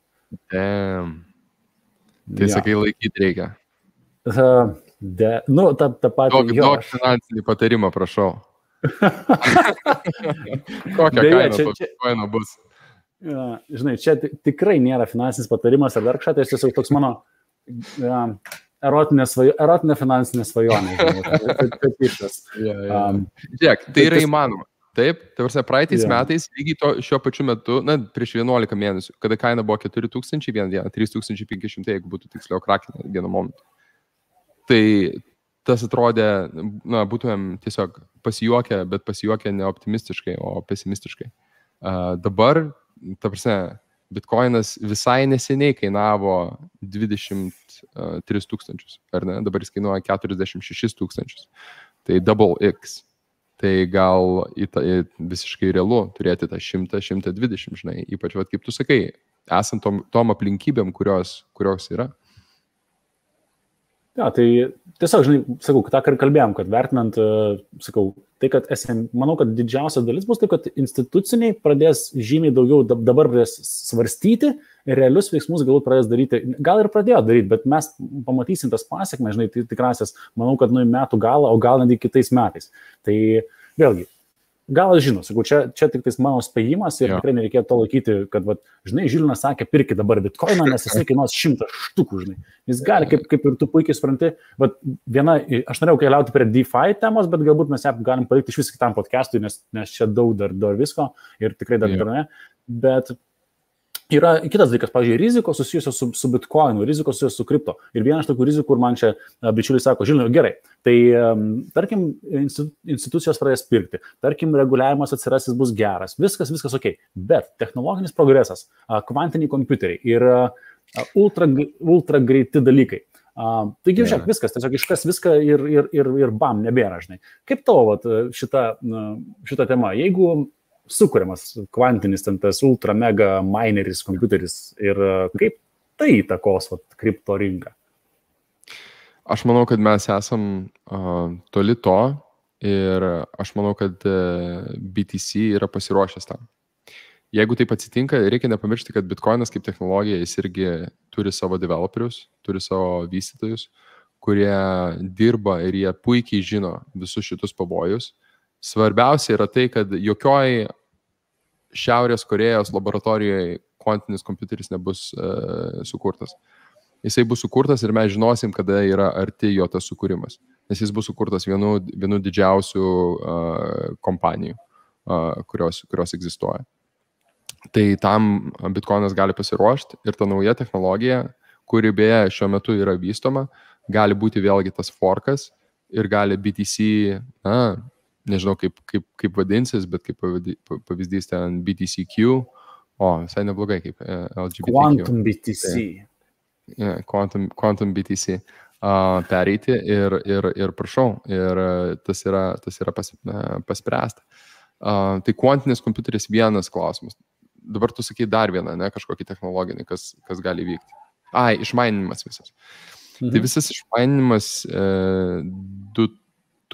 Tai sakai, laikyti reikia. Ta pati... Daug finansinį patarimą, prašau. Kokią kainą bitcoino bus? Žinai, čia tikrai nėra finansinis patarimas ar dar kažką, tai tiesiog toks mano erotinė finansinė svajonė. Žiūrėk, tai yra įmanoma. Taip, praeitais metais, lygiai šiuo pačiu metu, prieš 11 mėnesių, kada kaina buvo 4000 vieną dieną, 3500, jeigu būtų tiksliau krakinę vienu momentu. Tai tas atrodė, būtumėm tiesiog pasijuokę, bet pasijuokę ne optimistiškai, o pesimistiškai. Dabar, bitcoinas visai neseniai kainavo 23 000, ar ne? Dabar jis kainuoja 46 000. Tai double X. Tai gal visiškai realu turėti tą 100-120, žinai, ypač, kaip tu sakai, esant tom aplinkybėm, kurios yra. Ja, tai tiesiog, žinai, sakau, tą kalbėjom, kad vertinant, sakau, tai, kad manau, kad didžiausia dalis bus tai, kad instituciniai pradės žymiai daugiau dabar pradės svarstyti ir realius veiksmus galbūt pradės daryti, gal ir pradėjo daryti, bet mes pamatysim tas pasiekmes, žinai, tikrasias, manau, kad nuo metų galą, o gal netgi kitais metais. Tai vėlgi, gal aš žinau, sakau, čia tik tais mano spėjimas ir tikrai nereikėtų to laikyti, kad, žinai, Žilinas sakė, pirki dabar bitkoiną, nes jisai kainuos 100 štukų, žinai. Jis gali, kaip ir tu puikiai supranti, aš norėjau keliauti prie DeFi temos, bet galbūt mes ją galim palikti iš vis kitam podcastui, nes čia daug dar visko ir tikrai dar ne, bet yra kitas dalykas, pavyzdžiui, rizikos susijusios su bitkoinu, rizikos susijusios su kripto. Ir viena iš tokių rizikų, kur man čia bičiuliai sako, Žilinai, gerai, tai tarkim, institucijos pradės pirkti, tarkim, reguliavimas atsiras, jis bus geras, viskas ok, bet technologinis progresas, kvantiniai kompiuteriai ir ultra greiti dalykai. Taigi, žiūrėk, viskas, tiesiog iškas viską ir bam, nebėra, žinai. Kaip tavo šita tema, jeigu sukuriamas kvantinis tas ultra mega mineris kompiuteris ir kaip tai įtakos kripto rinką? Aš manau, kad mes esam toli to ir aš manau, kad BTC yra pasiruošęs tam. Jeigu taip atsitinka, reikia nepamiršti, kad bitkoinas kaip technologija, jis irgi turi savo developerius, turi savo vystytojus, kurie dirba ir jie puikiai žino visus šitus pavojus. Svarbiausia yra tai, kad jokioj Šiaurės Korėjos laboratorijoje kvantinis kompiuteris nebus sukurtas. Jisai bus sukurtas ir mes žinosim, kada yra arti jo tas sukūrimas. Nes jis bus sukurtas vienu didžiausių kompanijų, kurios egzistuoja. Tai tam bitkoinas gali pasiruošti ir ta nauja technologija, kuri beje šiuo metu yra vystoma, gali būti vėlgi tas forkas ir gali BTC, nežinau kaip vadinsis, bet kaip pavyzdys ten BTCQ, visai neblogai kaip LGBTQ. Quantum BTC. Quantum BTC pereiti ir prašau, ir tas yra paspręsta. Tai kvantinis kompiuteris vienas klausimas. Dabar tu sakai dar vieną, kažkokį technologinį, kas gali vykti. Išmaininimas visas. Tai visas išmaininimas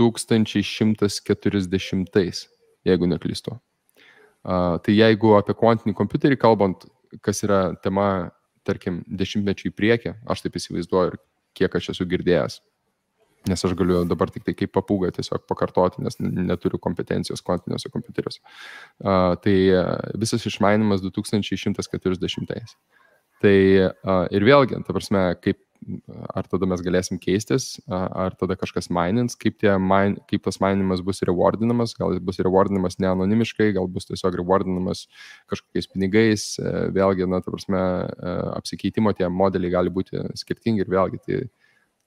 2140, jeigu neklystu. Tai jeigu apie kvantinį kompiuterį kalbant, kas yra tema, tarkim, 10 į priekį, aš taip įsivaizduoju ir kiek aš esu girdėjęs, nes aš galiu dabar tik tai kaip papūga tiesiog pakartoti, nes neturiu kompetencijos kvantiniuose kompiuteriuose. Tai visas išmainimas 2140. Tai ir vėlgi, ta prasme, ar tada mes galėsim keistis, ar tada kažkas mainins, kaip tas mainimas bus rewardinamas, gal jis bus rewardinamas ne anonimiškai, gal bus tiesiog rewardinamas kažkokiais pinigais, vėlgi, ta prasme, apsikeitimo tie modeliai gali būti skirtingi ir vėlgi,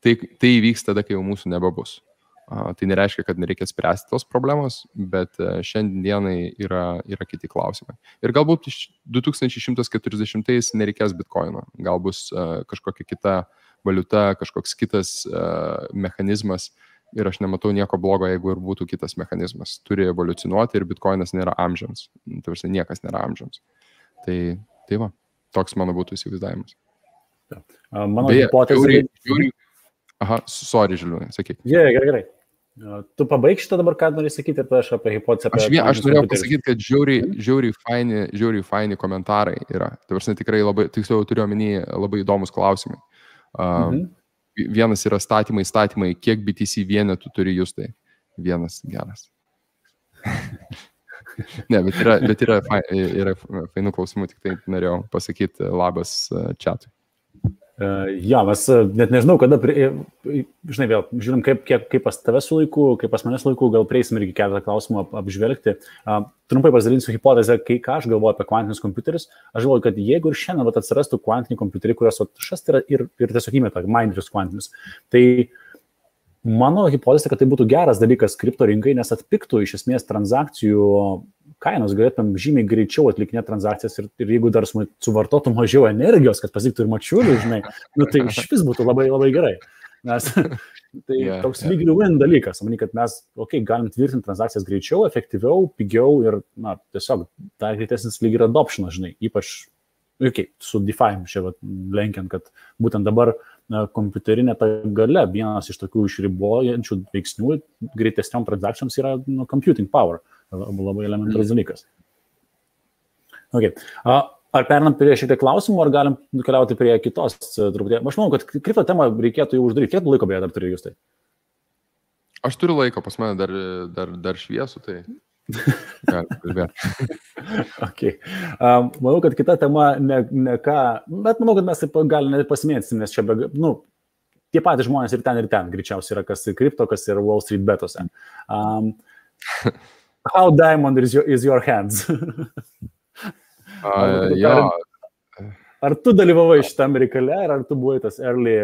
tai įvyks tada, kai jau mūsų nebebus. Tai nereiškia, kad nereikia spręsti tos problemos, bet šiandienai yra kiti klausimai. Ir galbūt 2140 nereikės bitkoino, gal bus kažkokia kita valiuta, kažkoks kitas mechanizmas ir aš nematau nieko blogo, jeigu ir būtų kitas mechanizmas. Turi evoliucionuoti ir bitkoinas nėra amžiams. Tai niekas nėra amžiams. Tai va, toks mano būtų įsivaizdavimas. Mano hipotezė... Sorry, Žiliūnai, sakyk. Gerai. Tu pabaig šitą dabar, ką nori sakyti, ir aš apie hipotezę. Aš norėjau pasakyti, kad žiauriai faini komentarai yra. Tai prasme tikrai labai, tiksliau turiu omeny, labai įdomus klausimai. Vienas yra statymai, kiek BTC vienetų turi jūs tai? Vienas geras. Ne, bet yra fainų klausimų, tik tai norėjau pasakyti labas chatui. Mes net nežinau, kada, žinai, vėl žiūrim, kaip pas tave su laiku, kaip pas manęs laiku, gal prieisim irgi keletą klausimų apžvelgti. Trumpai pasidalinsiu hipotezę, ką aš galvoju apie kvantinius kompiuterius. Aš galvoju, kad jeigu ir šiandien atsirastų kvantiniai kompiuteriai, kurios šast yra ir tiesiog įmeta minerius kvantinius, tai mano hipotezė, kad tai būtų geras dalykas kripto rinkai, nes atpiktų iš esmės transakcijų kainos, galėtum žymiai greičiau atlikinėti transakcijas ir jeigu dar suvartotų mažiau energijos, kad pasiektų ir mačiulių, žinai, tai iš vis būtų labai, labai gerai. Nes tai toks lyg win dalykas, manau, kad mes, galim tvirtinti transakcijas greičiau, efektyviau, pigiau ir, tiesiog dar greitesnis lyg ir adoptionas, žinai, ypač su DeFi čia lenkiant, kad būtent dabar kompiuterinė ta galia, vienas iš tokių išribojančių veiksnių greitesniom transakcijoms yra computing power, labai elementarus dalykas. Okay. Ar perinam prie šitą klausimų, ar galim nukeliauti prie kitos truputį? Aš manau, kad kripto temą reikėtų jau uždaryti. Kiek laiko beje dar turi jūs tai? Aš turiu laiko, pas mane dar šviesų, tai kalbėti. Okay. Manau, kad kita tema ne ką, bet manau, kad mes taip galime pasimėtysim, nes čia tie patys žmonės ir ten greičiausiai yra, kas kripto, kas yra Wall Street betose. How diamond is your hands? Ar tu dalyvavai šitame reikale, ar tu buvai tas early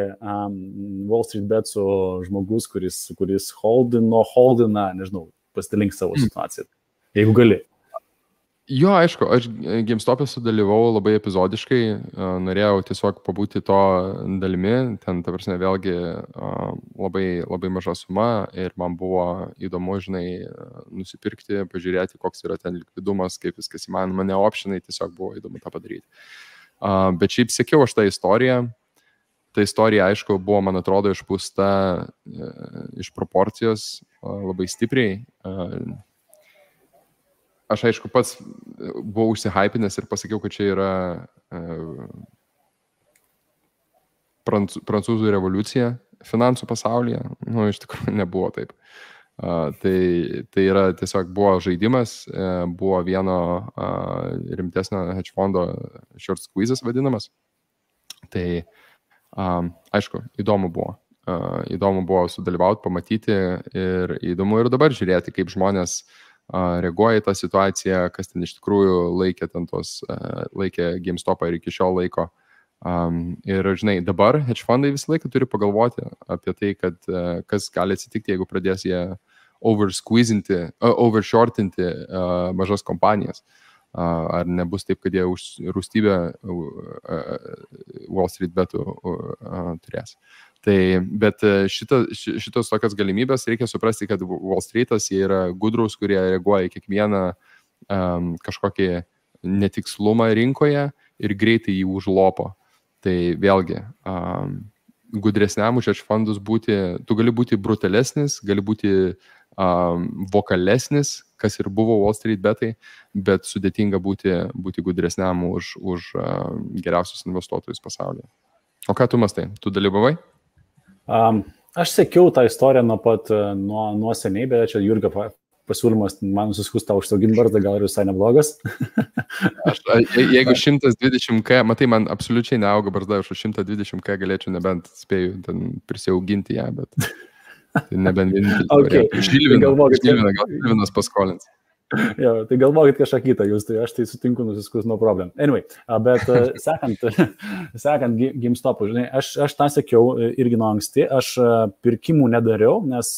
Wall Street Betsų žmogus, kuris holdina, nežinau, pasidalink savo situaciją, jeigu gali. Jo, aišku, aš GameStop'e sudalyvau labai epizodiškai, norėjau tiesiog pabūti to dalimi, ten, ta prasme, vėlgi labai, labai maža suma ir man buvo įdomu, žinai, nusipirkti, pažiūrėti, koks yra ten likvidumas, kaip viskas įmanoma, ne optionai, tiesiog buvo įdomu tą padaryti. Bet šiaip sekiau aš tą istoriją. Ta istorija, aišku, buvo, man atrodo, išpūsta iš proporcijos labai stipriai. Aš, aišku, pats buvau užsihypinęs ir pasakiau, kad čia yra prancūzų revoliucija finansų pasaulyje. Iš tikrųjų nebuvo taip. Tai yra tiesiog buvo žaidimas, buvo vieno rimtesnio hedge fondo short squeezes vadinamas. Tai, aišku, įdomu buvo. Įdomu buvo sudalyvauti, pamatyti ir įdomu ir dabar žiūrėti, kaip žmonės reaguoja į tą situaciją, kas ten iš tikrųjų laikė GameStop'ą ir iki šiol laiko. Ir, žinai, dabar hedge fondai visą laiką turi pagalvoti apie tai, kad kas gali atsitikti, jeigu pradės jie overshortinti mažas kompanijas. Ar nebus taip, kad jie rūstybę Wall Street betų turės. Bet šitos tokios galimybės reikia suprasti, kad Wall Streetas jie yra gudrus, kurie reaguoja į kiekvieną kažkokį netikslumą rinkoje ir greitai jį užlopo. Tai vėlgi, gudresniam už hedge fondus būti, tu gali būti brutalesnis, gali būti vokalesnis, kas ir buvo Wall Street betai, bet sudėtinga būti gudresniam už geriausius investuotojus pasaulyje. O ką tu mastai? Tu dalyvavai? Aš sekiau tą istoriją nuo seniai, bet čia Jurgio pasiūlymas man suskustą užsauginti barzdą, gal ir visai neblogas. Jeigu 120K, matai, man absoliučiai neauga barzda, už 120K galėčiau nebent spėju prisiauginti ją, bet nebent vienintelį. Žilvinas paskolins. Jo, tai galvokit kažką kitą jūs, tai aš tai sutinku nusiskus nuo problem. Anyway, bet sekant GameStop'u, žinai, aš tą sekiau irgi nuo anksti, aš pirkimų nedariau, nes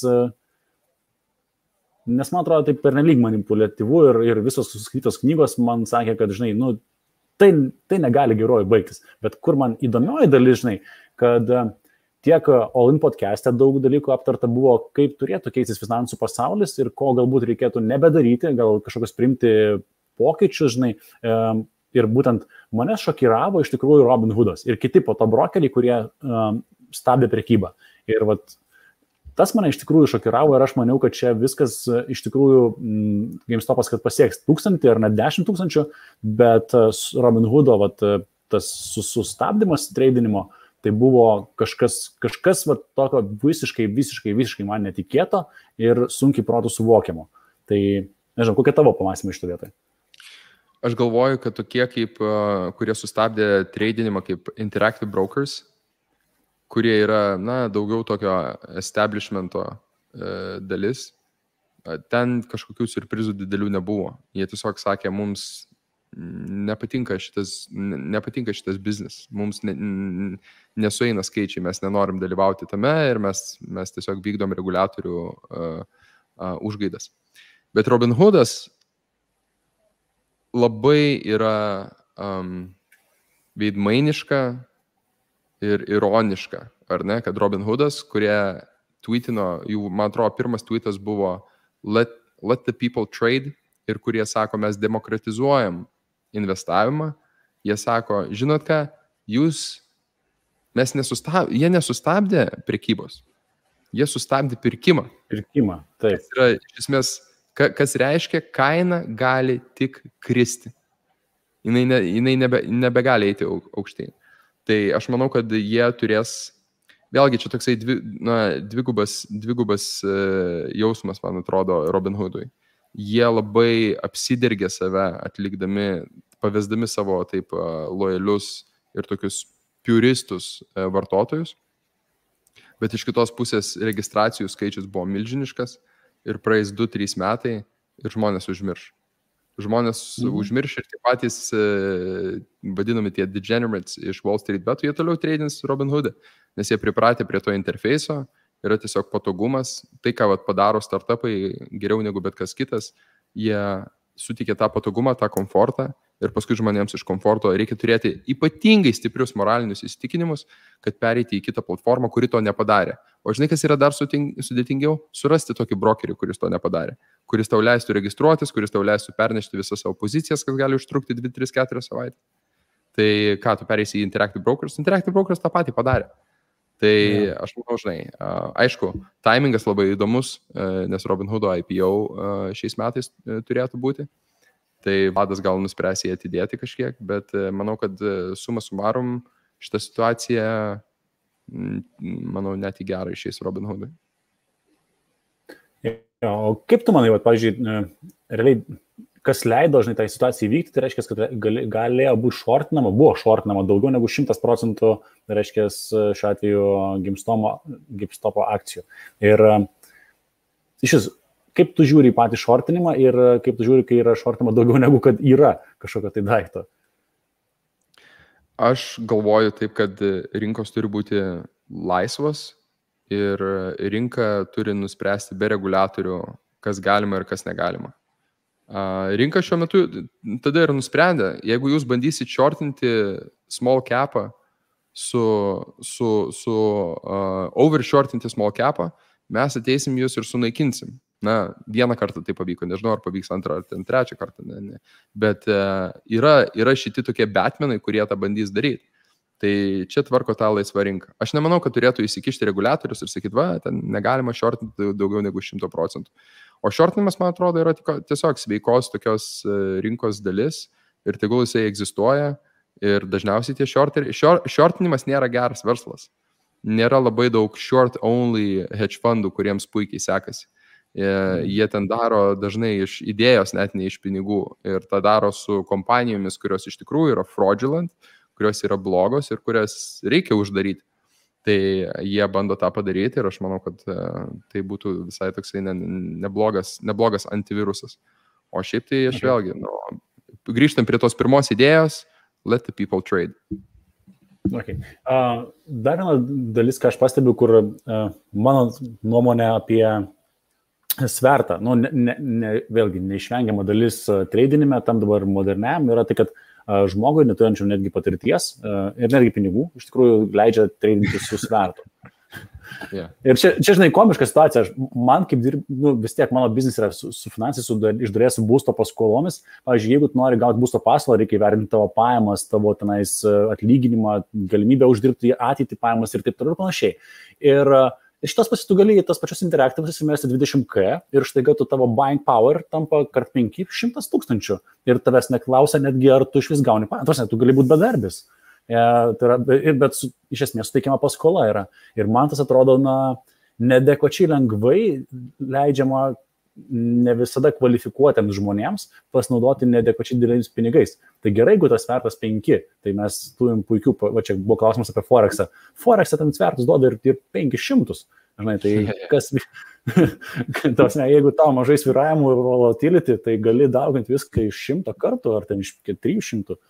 man atrodo tai pernelyg manipuliatyvu ir visos suskaitytos knygos man sakė, kad, žinai, tai negali geroji baigtis. Bet kur man įdomioji dalis, žinai, kad tiek All In podcast'e daug dalykų aptarta buvo, kaip turėtų keistis finansų pasaulis ir ko galbūt reikėtų nebedaryti, gal kažkokios priimti pokyčius, žinai. Ir būtent mane šokiravo iš tikrųjų Robin Hoodas ir kiti po to brokeriai, kurie stabdė prekybą. Ir tas mane iš tikrųjų šokiravo ir aš maniau, kad čia viskas iš tikrųjų GameStop'as, kad pasieks 1000 ar net 10 000, bet Robin Hoodo tas sustabdymas treidinimo, tai buvo kažkas tokio visiškai man netikėto ir sunkiai protų suvokiamo. Tai, nežinau, kokia tavo pamąstymai iš to vietoj? Aš galvoju, kad tokie, kurie sustabdė treidinimą kaip Interactive Brokers, kurie yra, daugiau tokio establishmento dalis, ten kažkokių surprizų didelių nebuvo. Jie tiesiog sakė, mums nepatinka šitas biznis, mums nesueina skaičiai, mes nenorim dalyvauti tame ir mes tiesiog vykdom reguliatorių užgaidas. Bet Robin Hoodas labai yra veidmainiška ir ironiška, ar ne, kad Robin Hoodas, kurie tweetino, man atrodo, pirmas tweetas buvo let the people trade ir kurie sako, mes demokratizuojam investavimą Jie sako, žinot ką, jie nesustabdė prekybos, jie sustabdė pirkimą. Pirkimą, taip. Kas yra, iš esmės, kas reiškia, kaina gali tik kristi. Jinai nebegali eiti aukštyn. Tai aš manau, kad jie turės, vėlgi čia toksai dvigubas jausmas, man atrodo, Robin Hoodui. Jie labai apsidergė save atlikdami, pavesdami savo taip lojalius ir tokius puristus vartotojus. Bet iš kitos pusės registracijų skaičius buvo milžiniškas ir praeis 2-3 metai ir žmonės užmirš. Užmirš ir tie patys vadinami tie degenerates iš Wall Street betų, jie toliau treidins Robin Hood'e, nes jie pripratę prie to interfeiso, yra tiesiog patogumas, tai ką padaro startupai geriau negu bet kas kitas, jie suteikia tą patogumą, tą komfortą ir paskui žmonėms iš komforto reikia turėti ypatingai stiprius moralinius įsitikinimus, kad pereiti į kitą platformą, kuri to nepadarė. O žinai, kas yra dar sudėtingiau? Surasti tokį brokerį, kuris to nepadarė, kuris tau leistų registruotis, kuris tau leistų pernešti visas savo pozicijas, kas gali užtrukti 2-3-4 savaitę. Tai ką, tu pereisi į Interactive Brokers? Interactive Brokers tą patį padarė. Tai aš manau, žinai, aišku, timingas labai įdomus, nes Robin Hood'o IPO šiais metais turėtų būti. Tai vadas gal nuspręs jį atidėti kažkiek, bet manau, kad suma sumarum šitą situaciją, manau, net į gerą išeis Robin Hood'ui. O kaip tu manai, pavyzdžiui, realiai, kas leido, žinai, tą situaciją įvykti, tai reiškia, kad galėjo būti buvo šortinama daugiau negu 100%, tai reiškia, šiuo atveju GameStop akcijų. Ir iš kaip tu žiūri į patį šortinimą ir kaip tu žiūri, kai yra šortinama daugiau negu kad yra kažkokio tai daikto? Aš galvoju taip, kad rinkos turi būti laisvos ir rinka turi nuspręsti be reguliatorių, kas galima ir kas negalima. Rinka šiuo metu tada ir nusprendė, jeigu jūs bandysit shortinti small capą overshortinti small capą, mes ateisim jūs ir sunaikinsim. Na, vieną kartą tai pavyko, nežinau, ar pavyks antrą ar trečią kartą, ne. Bet yra šitie tokie batmenai, kurie tą bandys daryti. Tai čia tvarko tą laisvą rinką. Aš nemanau, kad turėtų įsikišti reguliatorius ir sakyti, ten negalima shortinti daugiau negu 100%. O shortinimas, man atrodo, yra tiesiog sveikos tokios rinkos dalis ir tegul jisai egzistuoja ir dažniausiai tie shortinimas nėra geras verslas. Nėra labai daug short-only hedge fundų, kuriems puikiai sekasi. Jie ten daro dažnai iš idėjos, net ne iš pinigų. Ir tą daro su kompanijomis, kurios iš tikrųjų yra fraudulent, kurios yra blogos ir kurias reikia uždaryti. Tai jie bando tą padaryti ir aš manau, kad tai būtų visai toksai neblogas antivirusas. O šiaip tai aš vėlgi, grįžtam prie tos pirmos idėjos, let the people trade. Okay. Dar viena dalis, ką aš pastebiu, kur mano nuomonė apie svertą, vėlgi neišvengiama dalis tradinime, tam dabar moderniam, yra tai, kad žmogui neturinčiam netgi patirties ir netgi pinigų, iš tikrųjų leidžia tradinti su svertu. Yeah. Ir čia, žinai, komiška situacija. Man kaip vis tiek mano biznis yra su finansais, iš dalies su būsto paskolomis. Pavyzdžiui, jeigu tu nori gauti būsto paskolą, reikia įvertinti tavo pajamas, tavo tenais atlyginimą, galimybę uždirbti ateitį pajamas ir taip toliau ir panašiai. Ir iš tos pasų tu gali į tas pačios interaktyvus įsimesti 20K ir štai tu tavo buying power tampa kart 5 100,000 ir tavęs neklausia netgi, ar tu iš vis gauni pajamas. Tu gali būti bedarbis. Bet iš esmės suteikiama paskola yra. Ir man tas atrodo, neadekvačiai lengvai leidžiama ne visada kvalifikuotiems žmonėms pasinaudoti neadekvačiai dideliais pinigais. Tai gerai, jeigu tas svertas 5, tai mes turim puikių, čia buvo klausimas apie Forexą. Forexą ten svertus duoda ir 500. Žinai, tai kas, jeigu tau mažai svyravimų ir volatility, tai gali dauginti viską iš 100 kartų ar ten iš 300.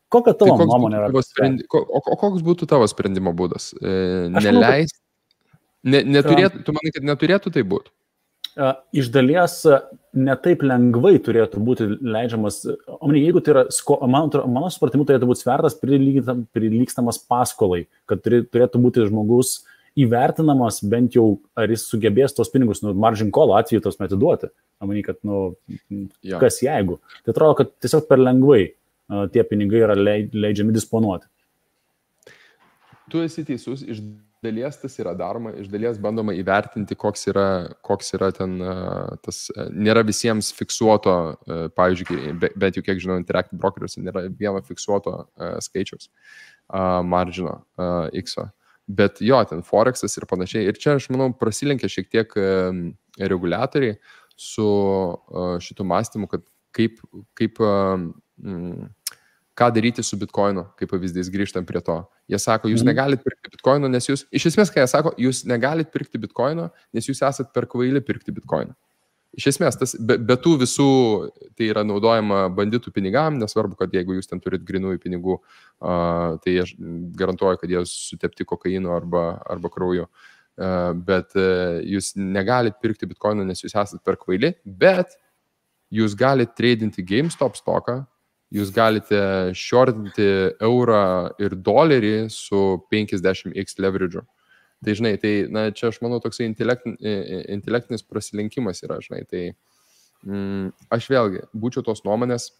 Kokia tavo nuomonė yra? O koks būtų tavo sprendimo būdas? Neleisti? Tu manai, kad neturėtų tai būti? Iš dalies netaip lengvai turėtų būti leidžiamas, jeigu tai yra, mano supratimu, turėtų būti svertas prilygstamas paskolai, kad turėtų būti žmogus įvertinamas bent jau, ar jis sugebės tos pinigus, margin call atveju tos atiduoti. Kad, kas jeigu. Tai atrodo, kad tiesiog per lengvai. tie pinigai yra leidžiami disponuoti. Tu esi teisus, iš dalies tas yra daroma, iš dalies bandoma įvertinti, koks yra ten tas, nėra visiems fiksuoto, pavyzdžiui, bet jau kiek žinau, Interactive Brokeriuose nėra vieno fiksuoto skaičiaus margino X-o. Bet jo, ten Forexas ir panašiai. Ir čia, aš manau, prasilenkia šiek tiek reguliatoriai su šitų mąstymu, kad ką daryti su Bitcoinu, kaip pavyzdys, grįžtam prie to. Jie sako, jūs negalit pirkti Bitcoino, nes jūs, iš esmės, ką jie sako, jūs negalit pirkti Bitcoino, nes jūs esat per kvaili pirkti Bitcoino. Iš esmės, tas, be tų visų, tai yra naudojama banditų pinigam, nesvarbu, kad jeigu jūs ten turit grinųjų pinigų, tai aš garantuoju, kad jie sutepti kokainu arba krauju. Bet jūs negalit pirkti Bitcoino, nes jūs esat per kvaili, bet jūs galite tradinti GameStop stoką, jūs galite shortinti eurą ir dolerį su 50x leverage'u. Tai, žinai, čia aš manau toksai intelektinis prasilenkimas yra, žinai, tai aš vėlgi būčiau tos nuomonės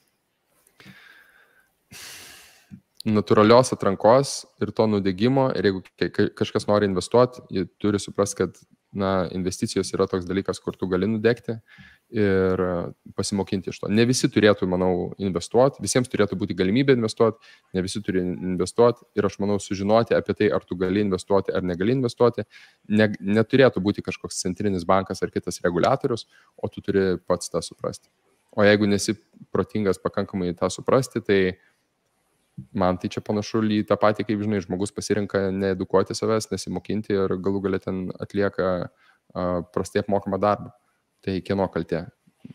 natūralios atrankos ir to nudegimo, ir jeigu kažkas nori investuoti, jie turi suprasti, kad investicijos yra toks dalykas, kur tu gali nudegti ir pasimokinti iš to. Ne visi turėtų, manau, investuoti, visiems turėtų būti galimybė investuoti, ne visi turi investuoti ir aš manau sužinoti apie tai, ar tu gali investuoti ar negali investuoti, neturėtų būti kažkoks centrinis bankas ar kitas reguliatorius, o tu turi pats tą suprasti. O jeigu nesi protingas pakankamai tą suprasti, tai man tai čia panašu į tą patį, kaip, žinai, žmogus pasirenka needukuoti savęs, nesimokinti ir galų galia ten atlieka prastai apmokamą darbą. Tai kieno kaltė?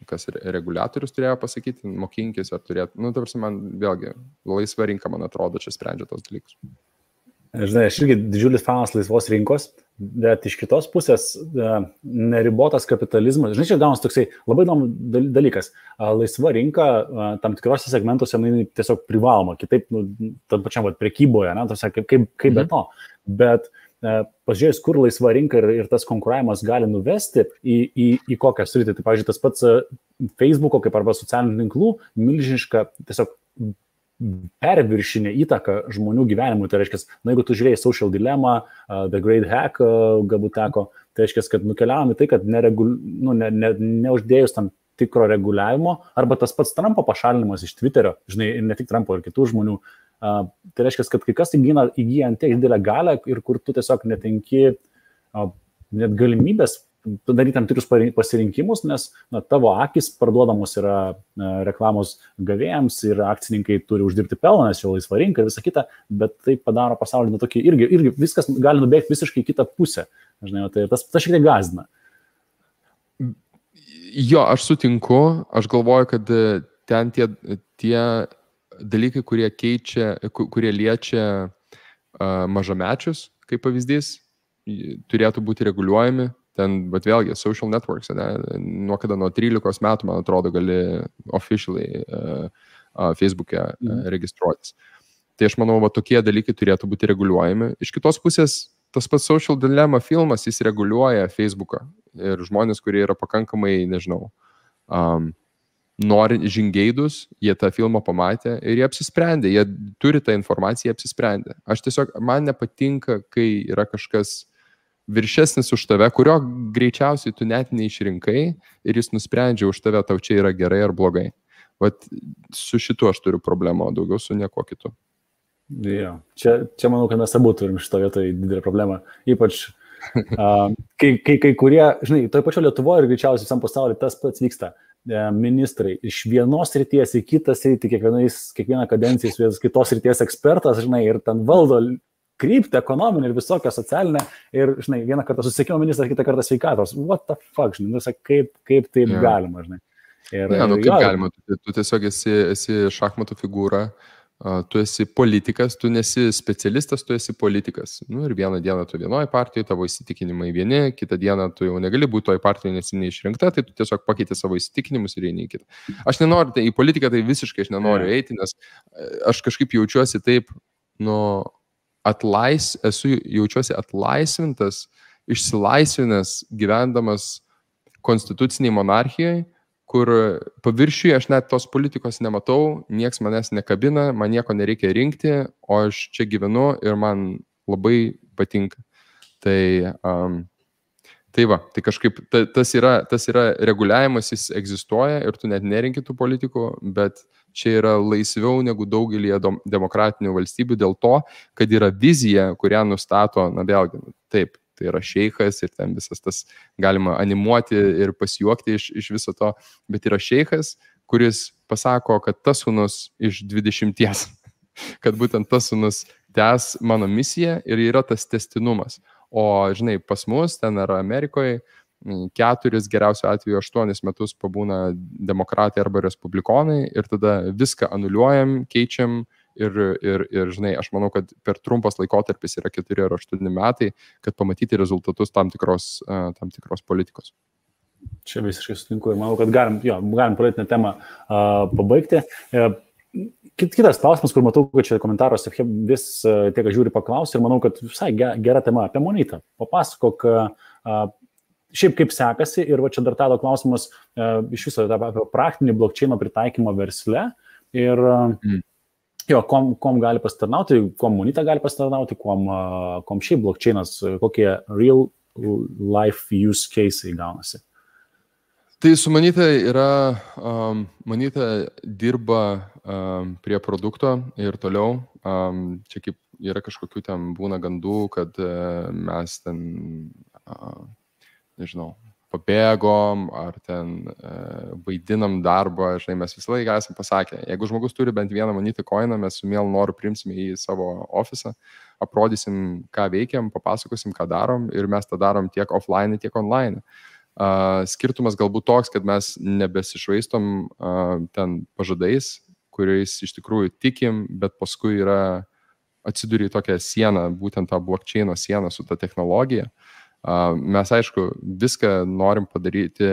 Kas reguliatorius turėjo pasakyti, mokinkis ar turėtų. Tarsi man vėlgi, laisva rinka, man atrodo, čia sprendžia tos dalykus. Žinai, aš irgi didžiulis fanas laisvos rinkos, bet iš kitos pusės neribotas kapitalizmas. Žinai, čia gaunas toksai labai įdomus dalykas. Laisva rinka tam tikrose segmentuose tiesiog privaloma, kitaip, tam pačiam prekyboje, kaip be to. Bet pažiūrėjus, kur laisva rinka ir tas konkuravimas gali nuvesti į kokią sritį. Tai, pavyzdžiui, tas pats Facebook'o kaip arba socialinių tinklų milžiniška tiesiog perviršinė įtaka žmonių gyvenimui. Tai reiškia, jeigu tu žiūrėjai Social Dilemma, The Great Hack, galbūt teko, tai reiškia, kad nukeliavom į tai, kad neuždėjus tam tikro reguliavimo, arba tas pats Trumpo pašalinimas iš Twitterio, žinai, ir ne tik Trumpo, ir kitų žmonių, tai reiškia, kad kai kas įgyja ant tiek didelę galią ir kur tu tiesiog netenki net galimybės daryti tam tikrus pasirinkimus, nes tavo akis parduodamos yra reklamos gavėjams ir akcininkai turi uždirbti pelną, nes jau laisva rinka ir visa kita, bet tai padaro pasaulį tokį, irgi viskas gali nubėgti visiškai kitą pusę. Žinai, tai tas šiek tiek gąsdina. Jo, aš sutinku, aš galvoju, kad ten tie dalykai, kurie liečia mažamečius, kaip pavyzdys, turėtų būti reguliuojami. Ten, bet vėlgi, social networks, nuo 13 metų, man atrodo, gali officially Facebook'e registruotis. Tai aš manau, tokie dalykai turėtų būti reguliuojami. Iš kitos pusės, tas pats Social Dilemma filmas, jis reguliuoja Facebook'ą. Ir žmonės, kurie yra pakankamai, nežinau, nori žingeidus, jie tą filmą pamatė ir jie apsisprendė, jie turi tą informaciją, jie apsisprendė. Aš tiesiog, man nepatinka, kai yra kažkas viršesnis už tave, kurio greičiausiai tu net neišrinkai ir jis nusprendžia už tave, tau čia yra gerai ar blogai. Vat su šitu aš turiu problemą, o daugiau su nieko kitu. Jo. Čia manau, kad mes abu turim šito vietoje didelę problemą. Ypač, kai kurie, žinai, toj pačio Lietuvoje ir greičiausiai visam pasaulyje tas pats vyksta. Ministrai iš vienos srities į kitą sritį, kiekvieną kadenciją iš kitos srities ekspertas, žinai, ir ten valdo kryptį, ekonominį ir visokią socialinę. Ir, žinai, vieną kartą susisiekimo ministras, kitą kartą sveikatos. What the fuck, žinai, kaip taip galima, žinai. Kaip galima, tu tiesiog esi šachmatų figūra, tu esi politikas, tu nesi specialistas, tu esi politikas. Ir vieną dieną tu vienoje partijoje, tavo įsitikinimai vieni, kitą dieną tu jau negali būti toje partijoje, nes neišrinkta, tai tu tiesiog pakeiti savo įsitikinimus ir eini į kitą. Aš nenoriu, į politiką tai visiškai aš nenoriu eiti, nes aš kažkaip jaučiuosi taip, jaučiuosi atlaisvintas, išsilaisvinęs gyvendamas konstituciniai monarchijai, kur paviršiuje aš net tos politikos nematau, nieks manęs nekabina, man nieko nereikia rinkti, o aš čia gyvenu ir man labai patinka. Tai va, tai kažkaip tas yra reguliavimas, jis egzistuoja ir tu net nerinki tų politikų, bet čia yra laisviau negu daugelį demokratinių valstybių dėl to, kad yra vizija, kurią nustato, na vėlgi, taip, tai yra šeichas ir ten visas tas galima animuoti ir pasijuokti iš viso to, bet yra šeichas, kuris pasako, kad tas sūnus iš 20, kad būtent tas sūnus tęs mano misiją ir yra tas tęstinumas. O, žinai, pas mus ten ar Amerikoje 4, geriausiu atveju 8 metus pabūna demokratai arba respublikonai ir tada viską anuliuojam, keičiam ir, žinai, aš manau, kad per trumpas laikotarpis yra 4 ar 8 metai, kad pamatyti rezultatus tam tikros politikos. Čia visiškai sutinku ir manau, kad galim politinę temą pabaigti. Kitas klausimas, kur matau, kad čia komentaruose vis tiek žiūri paklausti ir manau, kad visai gera tema apie Monetą. Papasakok, šiaip kaip sekasi ir va čia dar tado klausimas iš viso apie praktinį blockchaino pritaikymą versle ir kom gali pasitarnauti, kom Moneta gali pasitarnauti, kom šiaip blockchainas, kokie real life use case'ai gaunasi. Tai su Moneta Moneta dirba prie produkto ir toliau. Čia kaip yra kažkokių ten būna gandų, kad mes ten, nežinau, pabėgom ar ten vaidinam darbą. Žinai, mes visą laiką esame pasakę, jeigu žmogus turi bent vieną Moneta coiną, mes su mielu noru priimsime į savo ofisą, aprodysim, ką veikiam, papasakosim, ką darom ir mes tą darom tiek offline, tiek online. Skirtumas galbūt toks, kad mes nebesišvaistom ten pažadais, kuriais iš tikrųjų tikim, bet paskui atsiduri tokią sieną, būtent tą blockchaino sieną su ta technologija. Mes, aišku, viską norim padaryti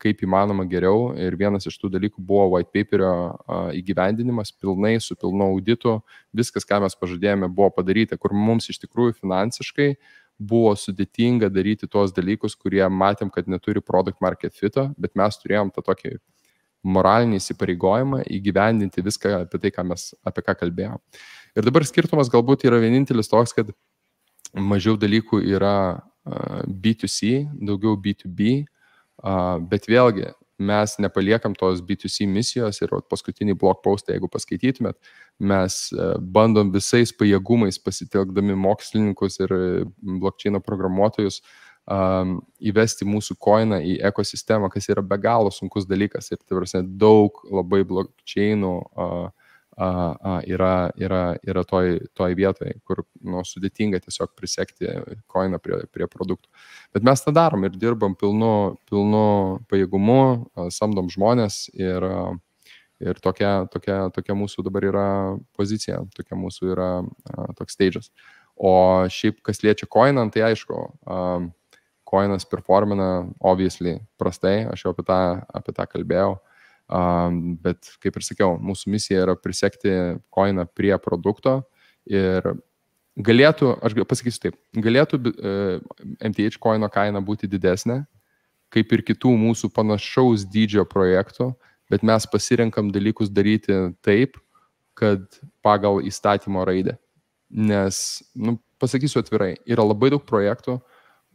kaip įmanoma geriau ir vienas iš tų dalykų buvo white paperio įgyvendinimas pilnai, su pilnu auditu. Viskas, ką mes pažadėjome, buvo padaryta, kur mums iš tikrųjų finansiškai buvo sudėtinga daryti tuos dalykus, kurie matėm, kad neturi product market fito, bet mes turėjom tą tokį moralinį įsipareigojimą įgyvendinti viską apie tai, apie ką kalbėjom. Ir dabar skirtumas galbūt yra vienintelis toks, kad mažiau dalykų yra B2C, daugiau B2B, bet vėlgi mes nepaliekam tos B2C misijos ir paskutinį blog postą, jeigu paskaitytumėt, mes bandom visais pajėgumais pasitelkdami mokslininkus ir blockchaino programuotojus įvesti mūsų coiną į ekosistemą, kas yra be galo sunkus dalykas ir tai daug labai blockchainų yra toj vietoje, kur sudėtinga tiesiog prisekti coiną prie produktų. Bet mes tą darom ir dirbam pilnu pajėgumu, samdom žmonės ir tokia mūsų dabar yra pozicija, tokia mūsų yra toks stage'as. O šiaip, kas liečia coiną, tai aišku, coinas performina obviously prastai, aš jau apie tą kalbėjau. Bet, kaip ir sakiau, mūsų misija yra prisekti coiną prie produkto ir galėtų, aš pasakysiu taip, galėtų MTH coino kaina būti didesnė, kaip ir kitų mūsų panašaus dydžio projektų, bet mes pasirenkam dalykus daryti taip, kad pagal įstatymo raidę. Nes, pasakysiu atvirai, yra labai daug projektų,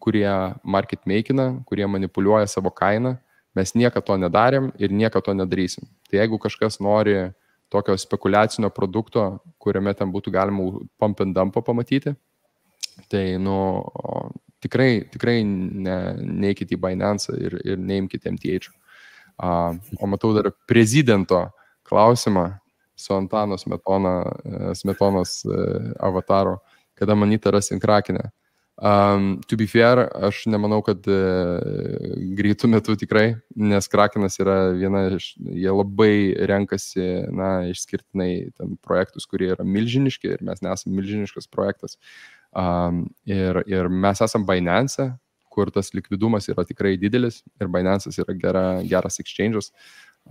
kurie market makina, kurie manipuliuoja savo kainą. Mes niekada to nedarėm ir niekada to nedarysim. Tai jeigu kažkas nori tokio spekuliacinio produkto, kuriame ten būtų galima pump and dump pamatyti, tai tikrai neikit į Binance ir neimkite MTH. O matau dar prezidento klausimą su Antano Smetonos avataro, kada Moneta rasim Krakenę. To be fair, aš nemanau, kad greitų metų tikrai, nes Krakenas yra jie labai renkasi, išskirtinai ten projektus, kurie yra milžiniški ir mes nesame milžiniškas projektas. Ir mes esam Binance, kur tas likvidumas yra tikrai didelis ir Binance'as yra geras exchange'as.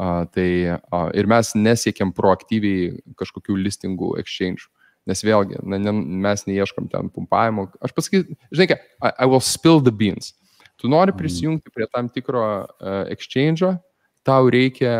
Ir mes nesiekiam proaktyviai kažkokių listingų exchange'ų. Nes vėlgi, mes neieškam ten pumpavimo. Aš pasakysiu, žinai ką, I will spill the beans. Tu nori prisijungti prie tam tikro exchange'o, tau reikia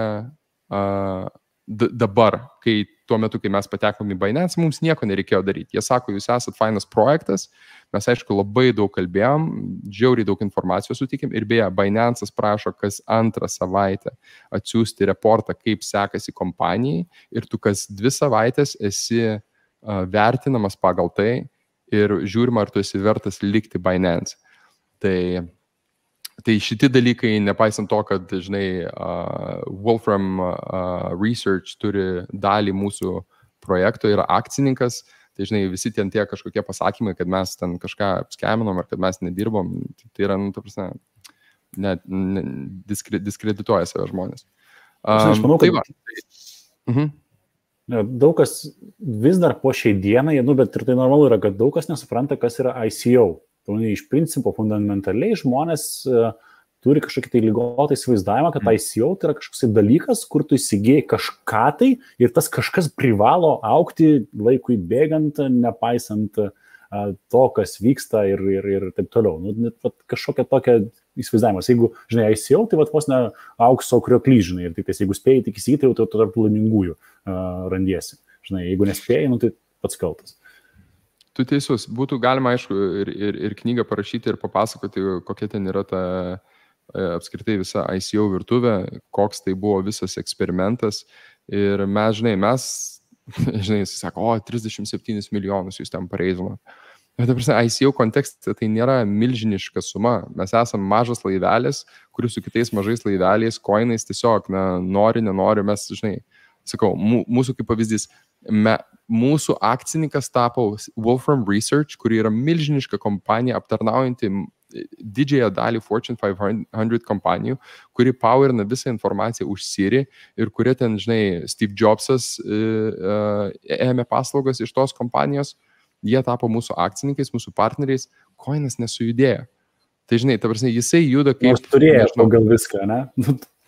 dabar, kai tuo metu, kai mes patekom į Binance, mums nieko nereikėjo daryti. Jie sako, jūs esat fainas projektas, mes aišku labai daug kalbėjom, žiauriai daug informacijos sutikėm ir beje, Binance'as prašo kas antrą savaitę atsiųsti reportą, kaip sekasi kompanijai ir tu kas 2 savaitės esi vertinamas pagal tai ir žiūrima, ar tu esi vertas likti Binance. Tai šiti dalykai, nepaisant to, kad, žinai, Wolfram Research turi dalį mūsų projekto, yra akcininkas, tai, žinai, visi ten tie kažkokie pasakymai, kad mes ten kažką apskeminom ar kad mes nedirbom, tai yra, ta prasme, diskredituoja save žmonės. Aš manau, kad daug kas vis dar po šiai dienai, bet ir tai normalu yra, kad daug kas nesupranta, kas yra ICO. Iš principo, fundamentaliai žmonės turi kažkokį tai ligotą įsivaizdavimą, kad ICO tai yra kažkoks dalykas, kur tu įsigėjai kažką tai ir tas kažkas privalo aukti laikui bėgant, nepaisant to, kas vyksta ir taip toliau. Kažkokia tokia įsivaizdavimas. Jeigu, žinai, ICO, tai vos ne aukso krioklys, žinai, ir tik jeigu spėjai tik įsigyti, tai tu tarp laimingųjų randiesi. Žinai, jeigu nespėjai, tai pats kaltas. Tu teisus, būtų galima, aišku, ir knygą parašyti ir papasakoti, kokia ten yra ta apskritai visa ICO virtuvė, koks tai buvo visas eksperimentas. Ir mes, žinai, sako, 37 milijonus jūs ten pareizino. Bet, ta prasme, ICO kontekste tai nėra milžiniška suma. Mes esame mažas laivelis, kuris su kitais mažais laiveliais, koinais tiesiog, nori, nenori, mes, žinai, sakau, mūsų kaip pavyzdys, mūsų akcininkas tapo Wolfram Research, kuri yra milžiniška kompanija aptarnaujanti didžiąją dalį Fortune 500 kompanijų, kuri powerina visą informaciją už Siri ir kurie ten, žinai, Steve Jobsas ėmė paslaugas iš tos kompanijos, jie tapo mūsų akcininkais, mūsų partneriais, koinas nesujudėjo. Tai, žinai, ta prasme, jisai juda kaip... Nors turėjo pagal viską, ne?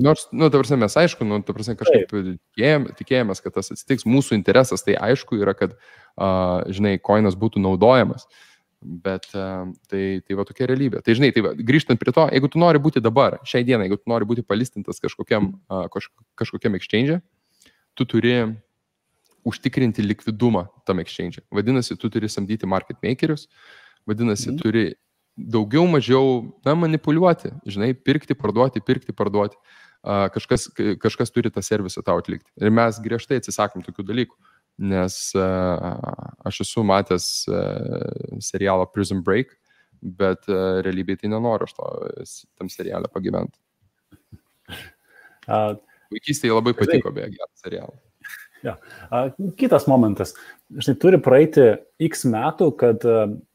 Nors, ta prasme, mes aišku, ta prasme, kažkaip tikėjomės, kad tas atsitiks. Mūsų interesas, tai aišku yra, kad, žinai, koinas būtų naudojamas. Bet tai va tokia realybė. Tai, žinai, grįžtant prie to, jeigu tu nori būti dabar, šiai dienai, jeigu tu nori būti palistintas kažkokiam exchange, tu turi užtikrinti likvidumą tam exchange. Vadinasi, tu turi samdyti market makerius, vadinasi, turi daugiau mažiau manipuliuoti, žinai, pirkti, parduoti. Kažkas turi tą servisą tau atlikti. Ir mes griežtai atsisakom tokių dalykų, nes aš esu matęs serialą Prison Break, bet realybėje tai nenoriu aš tam serialą pagyventi. Vaikystėje labai patiko, beje, gerą serialą. Ja. Kitas momentas. Žinai, turi praeiti X metų, kad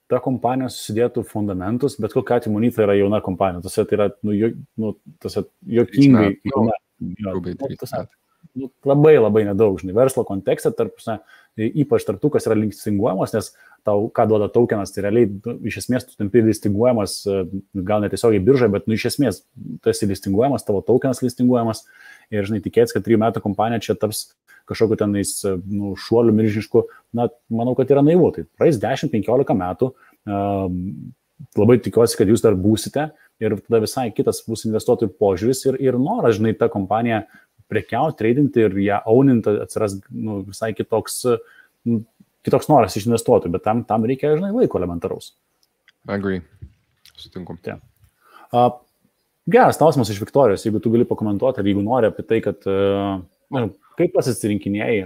ta kompanija susidėtų fundamentus, bet kokiu atveju Moneta yra jauna kompanija. Tai yra juokingai jauna. Labai, labai nedaug, žinai, verslo kontekste, ypač tarp tų, kas yra listinguojamas, nes tau, ką duoda tokenas, tai realiai, iš esmės, tu tampi listinguojamas, gal netiesiogiai biržai, bet, iš esmės, tu esi listinguojamas, tavo tokenas listinguojamas ir, žinai, tikėtis, kad 3 metų kompanija čia taps kažkokiu tenais šuoliu milžinišku, manau, kad yra naivu. Tai praeis 10-15 metų, labai tikiuosi, kad jūs dar būsite ir tada visai kitas bus investuotojų požiūris ir noras, žinai, tą kompaniją prekiauti, tradinti ir ją auninti atsiras visai kitoks noras iš investuotojų, bet tam reikia, žinai, laiko elementaraus. Agree. Sutinku. Ja. Geras klausimas iš Viktorijos, jeigu tu gali pakomentuoti, ar jeigu nori apie tai, kad kaip pasirinkinėjai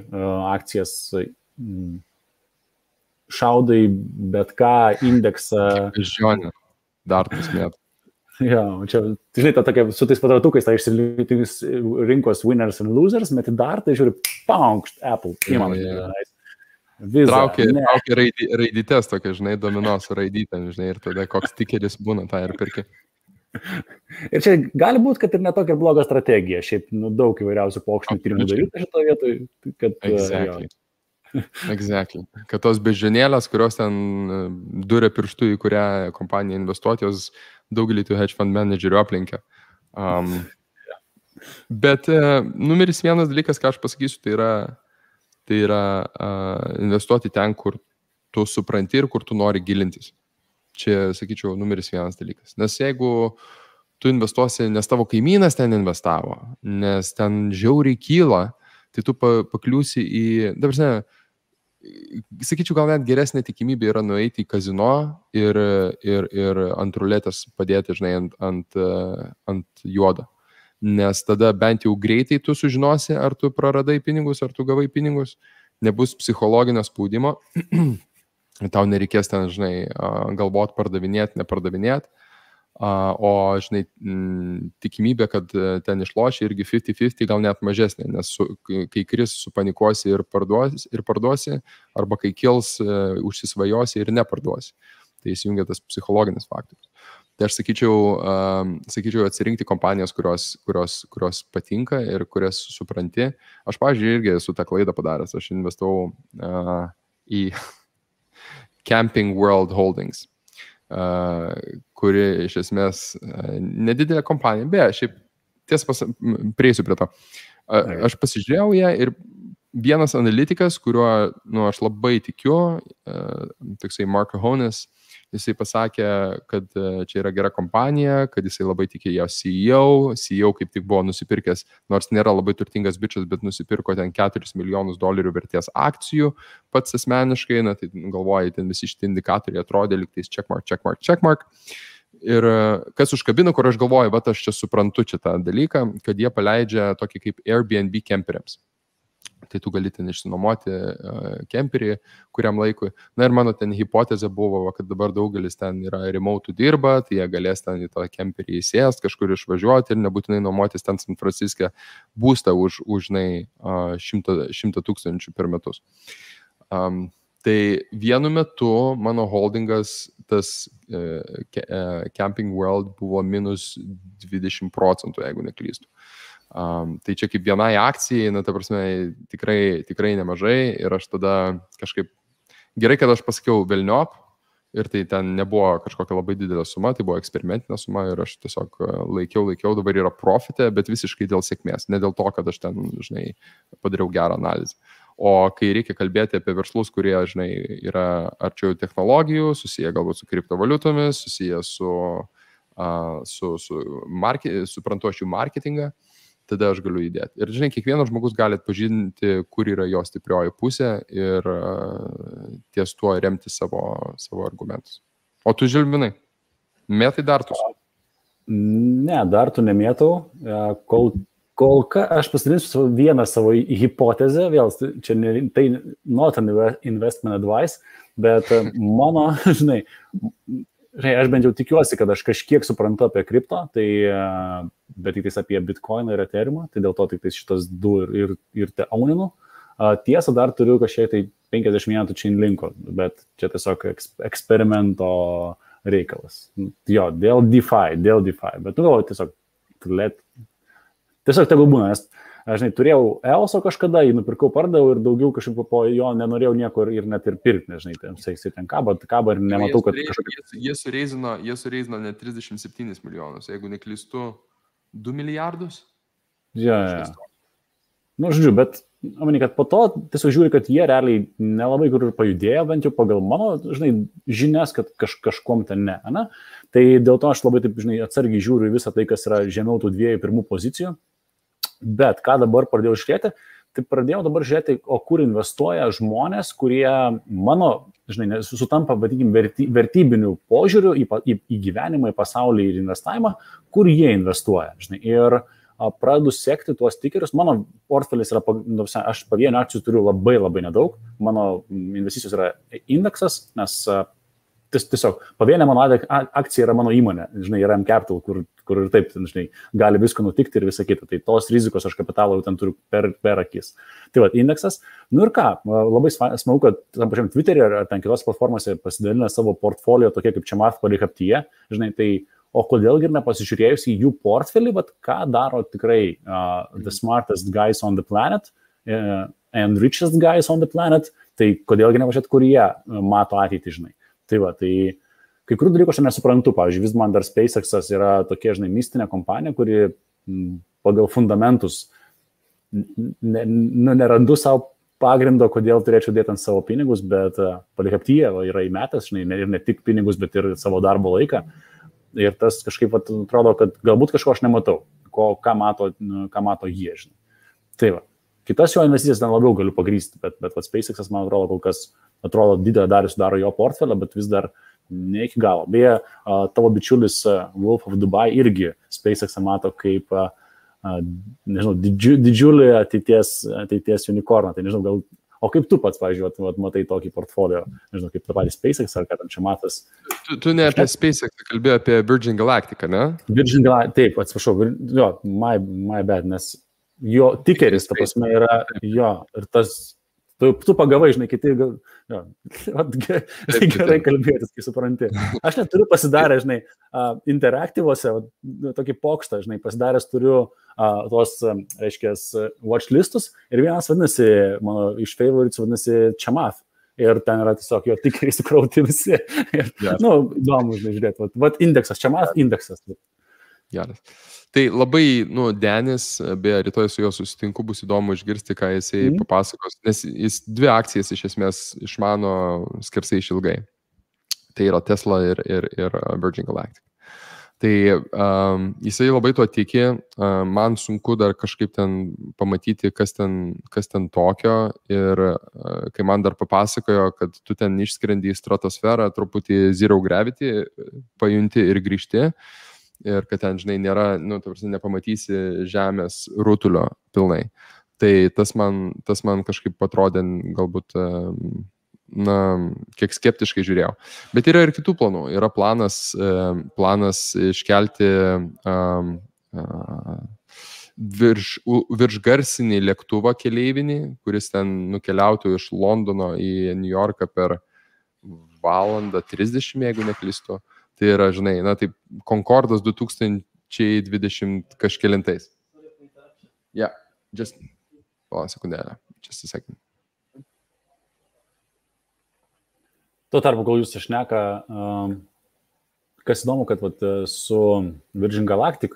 akcijas, šaudai bet ką, indeksą. Žionė, dar pusmėtų. Ja, čia, žinai, tokia, su tais patratukais, tai išsilinktis rinkos winners and losers, bet dar tai žiūri, paukšt, Apple, įmanai. Traukia raidytės tokia, žinai, domino su raidytėm, žinai, ir tada koks tikeris būna, tą ir perki. Ir čia gali būti, kad ir netokia bloga strategija, šiaip daug įvairiausių pokštinių tyrimų daryti šitoje vietoje. Exactly. Kad tos bežionėlės, kurios ten duria pirštų, į kurią kompaniją investuoti, jos daugelį tų hedge fund managerių aplinkia. Bet numeris vienas dalykas, ką aš pasakysiu, tai yra investuoti ten, kur tu supranti ir kur tu nori gilintis. Čia, sakyčiau, numeris vienas dalykas. Nes jeigu tu investuosi, nes tavo kaimynas ten investavo, nes ten žiauriai kyla, tai tu pakliūsi į, dabar, sakyčiau, gal net geresnė tikimybė yra nueiti į kazino ir ant ruletės padėti, žinai, ant juodo. Nes tada bent jau greitai tu sužinosi, ar tu praradai pinigus, ar tu gavai pinigus, nebus psichologinio spaudimo, tau nereikės ten, žinai, galvot pardavinėti, nepardavinėti, o, žinai, tikimybė, kad ten išloši irgi 50-50 gal net mažesnė, nes kai kris supanikuosi ir parduosi, arba kai kils užsisvajosi ir neparduosi. Tai įsijungia tas psichologinis faktorius. Tai aš sakyčiau atsirinkti kompanijas, kurios patinka ir kurias supranti. Aš, pavyzdžiui, irgi esu tą klaidą padaręs. Aš investavau į Camping World Holdings, kuri iš esmės nedidelė kompanija, beje, šiaip tiesą prieisiu prie to. Aš pasižiūrėjau ją ir vienas analitikas, kuriuo aš labai tikiu, toksai Mark Hones, jisai pasakė, kad čia yra gera kompanija, kad jisai labai tikė jo CEO kaip tik buvo nusipirkęs, nors nėra labai turtingas bičias, bet nusipirko ten $4 milijonus vertės akcijų pats asmeniškai, tai galvoja, ten visi šitie indikatoriai atrodė lygtais checkmark. Ir kas užkabino, kur aš galvoju, aš čia suprantu tą dalyką, kad jie paleidžia tokį kaip Airbnb kemperiams. Tai tu gali ten išsinuomoti kemperį kuriam laikui. Na ir mano ten hipotezė buvo, kad dabar daugelis ten yra remote dirba, tai jie galės ten į tą kemperį įsėst, kažkur išvažiuoti ir nebūtinai nuomotis ten San Franciske būstą už 100 000 per metus. Tai vienu metu mano holdingas, tas Camping World buvo minus 20%, jeigu neklystu. Tai čia kaip vienai akcijai, ta prasme, tikrai nemažai ir aš tada kažkaip, gerai, kad aš pasakiau velniop ir tai ten nebuvo kažkokia labai didelė suma, tai buvo eksperimentinė suma ir aš tiesiog laikiau, dabar yra profite, bet visiškai dėl sėkmės, ne dėl to, kad aš ten, žinai, padariau gerą analizę. O kai reikia kalbėti apie verslus, kurie, žinai, yra arčiau technologijų, susiję galbūt su kriptovaliutomis, susiję suprantu aš jų marketingą, tada aš galiu įdėti. Ir, žinai, kiekvienas žmogus gali atpažinti, kur yra jo stiprioji pusė ir ties tuo remti savo argumentus. O tu, Žilvinai, mėtai dartus? Ne, dartų nemėtau. Kol ką aš pasidalinsiu vieną savo hipotezę, vėl, čia tai not an investment advice, bet mano, žinai, aš bent jau tikiuosi, kad aš kažkiek suprantu apie kripto, tai, bet tik apie Bitcoiną ir Ethereumą, tai dėl to tik šitas du ir te auninu. Tiesa, dar turiu kažkiek tai 50 metų Chainlinko, bet čia tiesiog eksperimento reikalas. Jo, dėl DeFi, bet galvoju tiesiog tegul būna, nes aš turėjau EOS kažkada, jį nupirkau, pardavau ir daugiau kažkaip po jo nenorėjau nieko ir net ir pirkti, nežinai, ten kaba ir nematau, kad Jie sureizino net 37 milijonus, jeigu neklystu 2 milijardus. Ja. Žodžiu, bet manau, kad po to tiesiog žiūri, kad jie realiai nelabai kur ir pajudėjo, bent jau pagal mano, žinai, žinias, kad kažkom ten ne. Tai dėl to aš labai taip, žinai, atsargiai žiūriu į visą tai, kas yra žemiau tų 2-1 pozicijų. Bet ką dabar pradėjau žiūrėti, tai pradėjau dabar žiūrėti, o kur investuoja žmonės, kurie mano, žinai, sutampa, vadikim, vertybinių požiūrių į gyvenimą, į pasaulį ir investavimą, kur jie investuoja, žinai. Ir pradedu sekti tuos tikerius. Mano portfelis yra, aš pavienių akcijų turiu labai nedaug, mano investicijos yra indeksas, nes tiesiog pavienė mano akcija yra mano įmonė, žinai, yra M-Capital, kur ir taip, žinai, gali visko nutikti ir visa kita. Tai tos rizikos aš kapitalo jau ten turiu per akis. Tai va, indeksas. Ir ką, labai smagu, kad tam pačiam Twitter'e ar ten kitos platformose pasidalina savo portfolio tokie kaip čia Math Palikaptyje, žinai, tai o kodėlgi ir nepasižiūrėjus į jų portfelį, bet ką daro tikrai the smartest guys on the planet and richest guys on the planet, tai kodėlgi nepažiūrėt, kur jie mato ateitį, žinai. Tai va, tai kai kurių dalykų aš nesuprantu, pavyzdžiui, vis man dar SpaceX'as yra tokia, žinai, mistinė kompanija, kuri pagal fundamentus nerandu savo pagrindo, kodėl turėčiau dėti ant savo pinigus, bet Palikaptyje yra įmetęs, žinai, ir ne tik pinigus, bet ir savo darbo laiką. ir tas kažkaip atrodo, kad galbūt kažko aš nematau, ką mato jie, žinai. Tai va. Kitas jo investicijas ten labiau galiu pagrysti, bet SpaceX'as, man atrodo, kol kas atrodo didelę dalį sudaro jo portfelio, bet vis dar ne iki galo. Beje, tavo bičiulis Wolf of Dubai irgi SpaceX'ą mato kaip, nežinau, didžiulį ateities unicorną. Tai nežinau, gal, o kaip tu pats, pavyzdžiui, matai tokį portfolio, nežinau, kaip tą patį SpaceX ar ką tam čia matas? Tu ne apie SpaceX, kalbėjai apie Virgin Galactica, ne? Virgin Galactica, taip, atsiprašau, jo, my bad, nes jo tikeris, ta prasme, yra jo, ir tas, tu pagavai, žinai, kiti, jo, gerai kalbėtis, kai supranti. Aš net turiu pasidarę, žinai, interaktyvose, tokį pokštą, žinai, pasidaręs turiu tos, reiškia, watchlistus ir vienas vadinasi, mano iš favorites vadinasi Chamath. Ir ten yra tiesiog jo tikeriai sukrauti visi. Ir, įdomu, žinai, žiūrėti. Vat indeksas, Chamath indeksas. Geras. Tai labai, Denis, beje, rytoj su juo susitinku, bus įdomu išgirsti, ką jisai papasakos, nes jis 2 akcijas iš esmės išmano skersai išilgai. Tai yra Tesla ir Virgin Galactic. Tai jisai labai tuo tiki, man sunku dar kažkaip ten pamatyti, kas ten tokio, ir kai man dar papasakojo, kad tu ten išskrendi į stratosferą, truputį zero gravity, pajunti ir grįžti, ir kad ten, žinai, nėra, nepamatysi žemės rutulio pilnai. Tai tas man kažkaip atrodė galbūt, kiek skeptiškai žiūrėjau. Bet yra ir kitų planų. Yra planas iškelti viršgarsinį lėktuvą keleivinį, kuris ten nukeliautų iš Londono į New Yorką per 1:30, jeigu neklystu. Tai yra, žinai, taip, Concordas 2020 kažkelintais. Yeah, just, sekundėlę, just a second. Tuo tarpu, kol jūs išneka, kas įdomu, kad su Virgin Galactic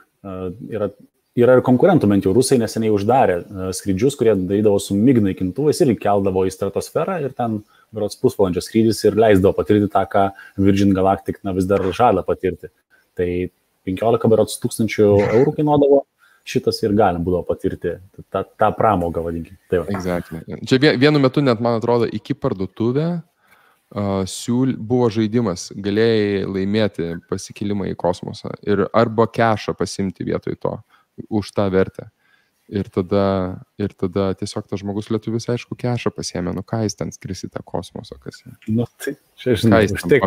yra ir konkurentų, bent jau rusai neseniai uždarė skrydžius, kurie darydavo su MiG naikintuvais ir keldavo į stratosferą ir ten berods pusvalandžio skrydis ir leisdavo patirti tą, ką Virgin Galactic vis dar žada patirti. Tai 15 berods €1,000 kainuodavo šitas ir galim būdavo patirti tą pramogą, vadinkime. Tai exactly. Čia vienu metu net, man atrodo, iki parduotuvę buvo žaidimas, galėjai laimėti pasikelimą į kosmosą ir arba kešą pasimti vietoj to už tą vertę. Ir tada tiesiog tas žmogus lietuvis, aišku, kešą pasiėmė, ką jis ten skris į tą kosmosą, kas. Tai čia, žinai, už tiek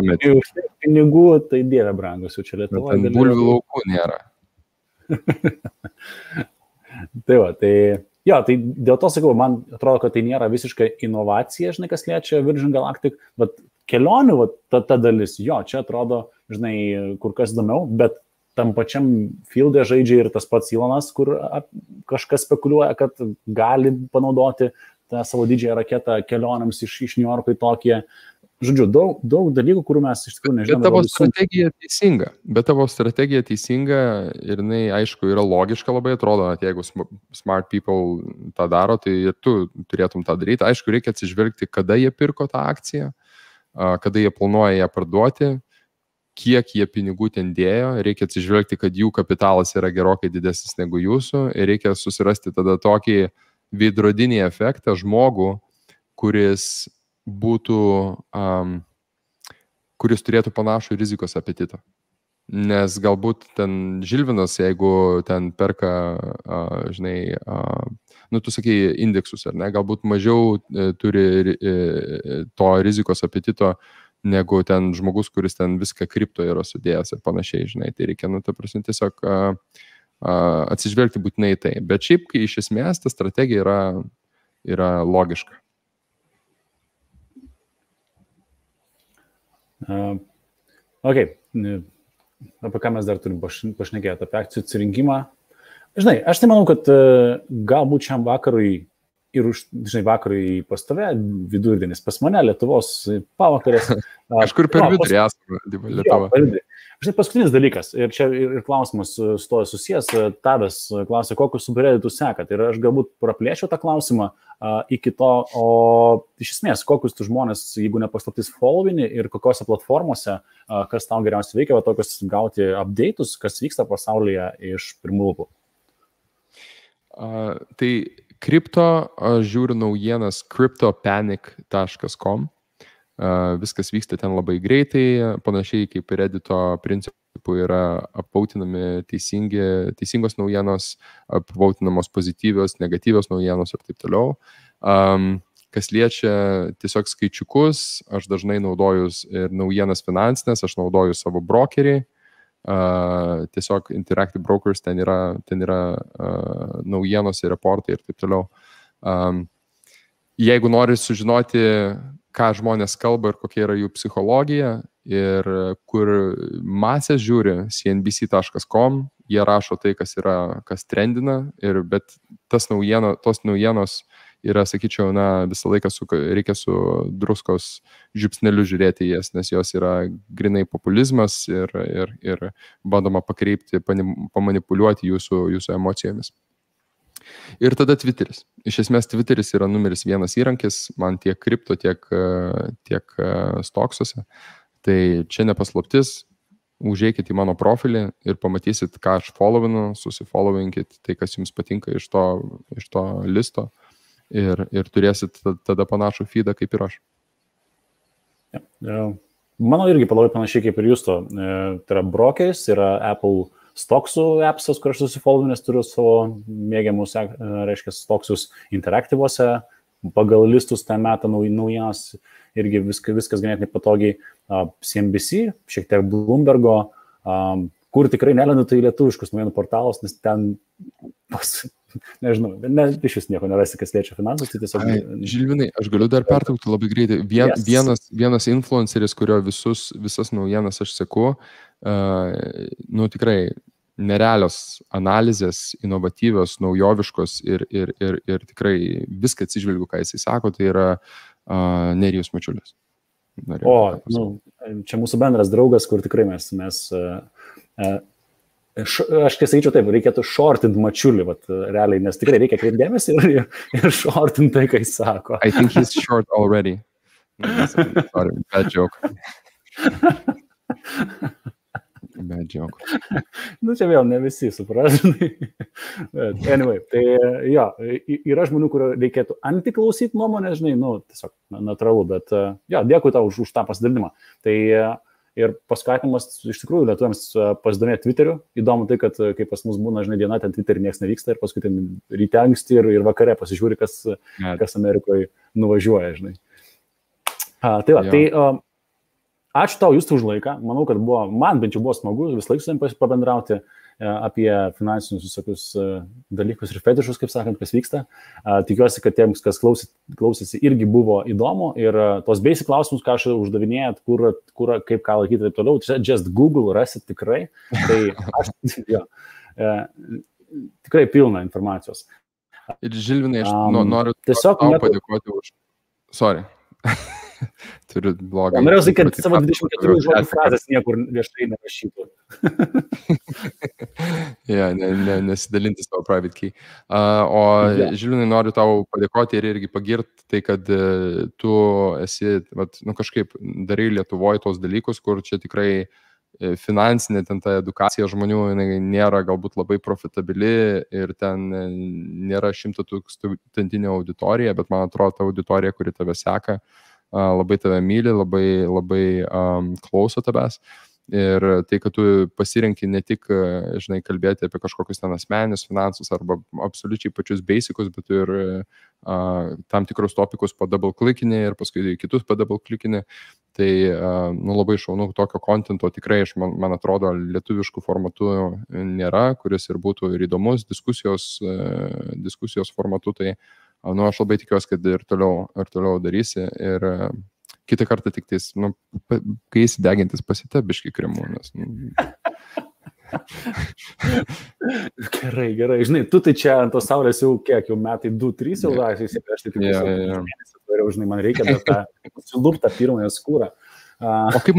pinigų, tai dieve brangus, jau čia Lietuvoje. Ten bulvių laukų nėra. Tai va, tai dėl to sakau, man atrodo, kad tai nėra visiška inovacija, žinai, kas liečia Virgin Galactic, bet kelionių, ta dalis, čia atrodo, žinai, kur kas įdomiau, bet tam pačiam field'e žaidžia ir tas pats Elonas, kur kažkas spekuliuoja, kad gali panaudoti tą savo didžiąją raketą kelionėms iš New Yorko į Tokiją. Žodžiu, daug dalykų, kurių mes iš tikrųjų nežinome. Bet tavo strategija teisinga ir jinai, aišku, yra logiška labai, atrodo, kad jeigu smart people tą daro, tai ir tu turėtum tą daryti. Aišku, reikia atsižvelgti, kada jie pirko tą akciją, kada jie planuoja ją parduoti, kiek jie pinigų ten dėjo, reikia atsižvelgti, kad jų kapitalas yra gerokai didesnis negu jūsų ir reikia susirasti tada tokį veidrodinį efektą žmogų, kuris turėtų panašų rizikos apetitą. Nes galbūt ten Žilvinas, jeigu ten perka, žinai, tu sakai indeksus, ar ne, galbūt mažiau turi to rizikos apetito negu ten žmogus, kuris ten viską kripto yra sudėjęs ir panašiai, žinai, tai reikia, tiesiog atsižvelgti būtinai tai. Bet šiaip, kai iš esmės ta strategija yra logiška. Ok, apie ką mes dar turim pašnekėti, apie akcijų atsirinkimą. Žinai, aš tai manau, kad galbūt šiam vakarui ir žinai, vakarai pas tave, vidurdienis pas mane, Lietuvos pavakarės. Kažkur per vidurį esame, Lietuva. Žinai, paskutinis dalykas, ir čia ir klausimas su to susijęs, Tadas klausė, kokius subredditus sekat. Ir aš galbūt praplėčiau tą klausimą iki to, o iš esmės, kokius tu žmonės, jeigu nepaslaptis, followini ir kokiose platformose, kas tau geriausiai veikia, va tokius gauti update'us, kas vyksta pasaulyje iš pirmų lūpų. Tai kripto, aš žiūriu naujienas cryptopanic.com. Viskas vyksta ten labai greitai, panašiai kaip Reddito principų yra apvautinami teisingos naujienos, apvautinamos pozityvios, negatyvios naujienos ir taip toliau. Kas liečia tiesiog skaičiukus, aš dažnai naudoju ir naujienas finansinės, aš naudoju savo brokerį. Tiesiog Interactive Brokers, ten yra naujienos ir reportai ir taip toliau. Jeigu nori sužinoti, ką žmonės kalba ir kokia yra jų psichologija ir kur masės žiūri, cnbc.com, jie rašo tai, kas trendina, bet tos naujienos yra, sakyčiau, visą laiką reikia su druskos žiupsneliu žiūrėti jas, nes jos yra grinai populizmas ir bandoma pakreipti, pamanipuliuoti jūsų emocijomis. Ir tada Twitteris. Iš esmės Twitteris yra numeris 1 įrankis, man tiek kripto, tiek stoksuose. Tai čia nepaslaptis, užeikit į mano profilį ir pamatysit, ką aš followinu, susifollowinkit tai, kas jums patinka iš to listo. Ir turėsit tada panašų feedą kaip ir aš. Mano irgi labai panašiai kaip ir jūsų. Tai yra brokeris, yra Apple stoksų appsas, kur aš susifollow, nes turiu savo mėgiamus, reiškia, stoksus interaktyvuose, pagal listus ten metą naujienas, irgi viskas ganėtinai patogiai. CNBC, šiek tiek Bloombergo, kur tikrai nelendu tai lietuviškus naujienų portalas, nes ten nežinau, iš vis nieko nerasi, kas liečia finansus, tai tiesiog... Žilvinai, aš galiu dar pertraukti labai greitai. Vienas influenceris, kurio visas naujienas aš seku, tikrai nerealios analizės, inovatyvios, naujoviškos ir tikrai viską atsižvelgiu, ką jisai sako, tai yra Nerijus Mačiulis. Čia mūsų bendras draugas, kur tikrai mes aš kai sakyčiau taip, reikėtų shortint Mačiulį, realiai, nes tikrai reikia kreipdėmėsi ir shortint tai, ką jis sako. I think he's short already. Sorry, bad joke. Bad joke. Čia vėl ne visi suprasdami. Anyway, tai jo, yra žmonių, kurio reikėtų antiklausyti nuomonę, žinai, tiesiog natūralu, bet jo, dėkui tau už tą pasidalinimą. Tai ir paskatinimas iš tikrųjų lietuviams pasidomėti Twitteriu. Įdomu tai, kad kai pas mus būna, žinai, diena, ten Twitterį niekas nevyksta ir paskui ten ryte anksti ir vakare pasižiūri, kas Amerikoje nuvažiuoja, žinai. Tai va, tai ačiū tau, Justai, už laiką. Manau, kad man bent jau buvo smagu vis laik su jums pabendrauti apie finansinius visokius dalykus ir fetišus, kaip sakant, kas vyksta. Tikiuosi, kad tiems, kas klausėsi, irgi buvo įdomu ir tos basic klausimus, ką aš uždavinėjat, kur kaip ką laikyti ir taip toliau, just Google rasit tikrai. Tai aš tikrai pilna informacijos. Ir Žilvinai, aš noriu tau padėkoti už... Sorry. Turiu blogą. Norėjau sakyti, kad savo 24 žodžių frazės niekur viešai nerašytų. Nesidalinti savo private key. Žilvinai, noriu tau padėkoti ir irgi pagirti tai, kad tu esi, kažkaip darai Lietuvoje tos dalykus, kur čia tikrai finansinė ten ta edukacija žmonių nėra galbūt labai profitabili ir ten nėra 100,000 auditorija, bet man atrodo ta auditorija, kuri tave seka, labai tave myli, labai klauso tavęs. Ir tai, kad tu pasirenki ne tik, žinai, kalbėti apie kažkokius ten asmeninius finansus arba absoliučiai pačius basicus, bet ir tam tikrus topikus padouble-clickinį ir paskui kitus padouble-clickinį. Tai labai šaunu, tokio kontento tikrai, man atrodo, lietuviškų formatų nėra, kuris ir būtų ir įdomus diskusijos formatu. Tai aš labai tikiuosi, kad ir toliau darysi. Ir kitą kartą tik tais, kai įsidegintis pasite biškį kremu, nes... Gerai. Žinai, tu tai čia ant tos saulės jau kiek, jau metai 2-3 jau laisvai, aš tai tik mėnesį, žinai, man reikia dar tą suluptą pirmąją skūrą. O kaip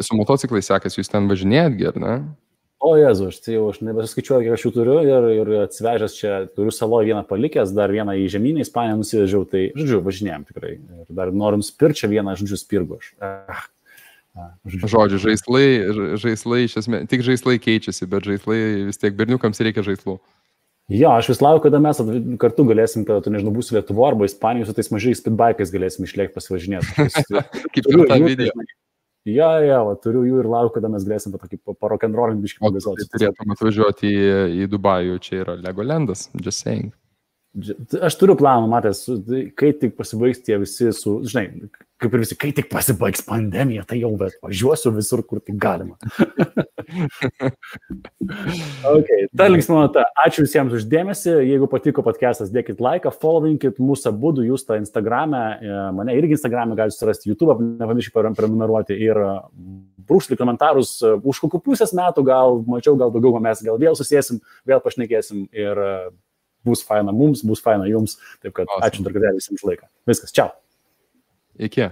su motociklai sekasi, jūs ten važinėjat, ar ne? O Jezu, aš nebesuskaičiuoju, kiek aš jų turiu ir atsivežęs čia, turiu saloje vieną palikęs, dar vieną į žemynę, Ispaniją nusivežiau, tai, žodžiu, važinėjom tikrai. Ir dar norim spirčią vieną, žodžiu, spirgu aš. Žodžiu, žaislai, iš esmės, tik žaislai keičiasi, bet žaislai vis tiek berniukams reikia žaislų. Jo, aš vis laukiu, kada mes kartu galėsim, kada tu, nežinau, būsi Lietuvo arba Ispanijos, su tais mažais speedbikais galėsim išlėkti pasivažinėti. Kaip ir tą video. Jo, turiu jų ir laukiu, kada mes galėsim parokenrolint biškį pagazuoti. Turėtum atvažiuoti į Dubajų, čia yra Legolandas, just saying. Aš turiu planą, matęs, kai tik pasibaigs tie visi žinai, kaip ir visi, kai tik pasibaigs pandemija, tai jau važiuosiu visur, kur tik galima. Ta linksma nota. Ačiū visiems už dėmesį. Jeigu patiko podcastas, dėkit laiką, followinkit mūsų abudu, jūs tą Instagram'e, mane irgi Instagram'e galite surasti, YouTube, nepamirškite prenumeruoti ir brūkšti komentarus, už kokių pusės metų, gal mačiau, gal daugiau, mes gal vėl susėsim, vėl pašnekėsim ir bus faina mums, bus faina jums. Taip kad ačiū dar kartą visiems už laiką. Viskas, čiau. Iki.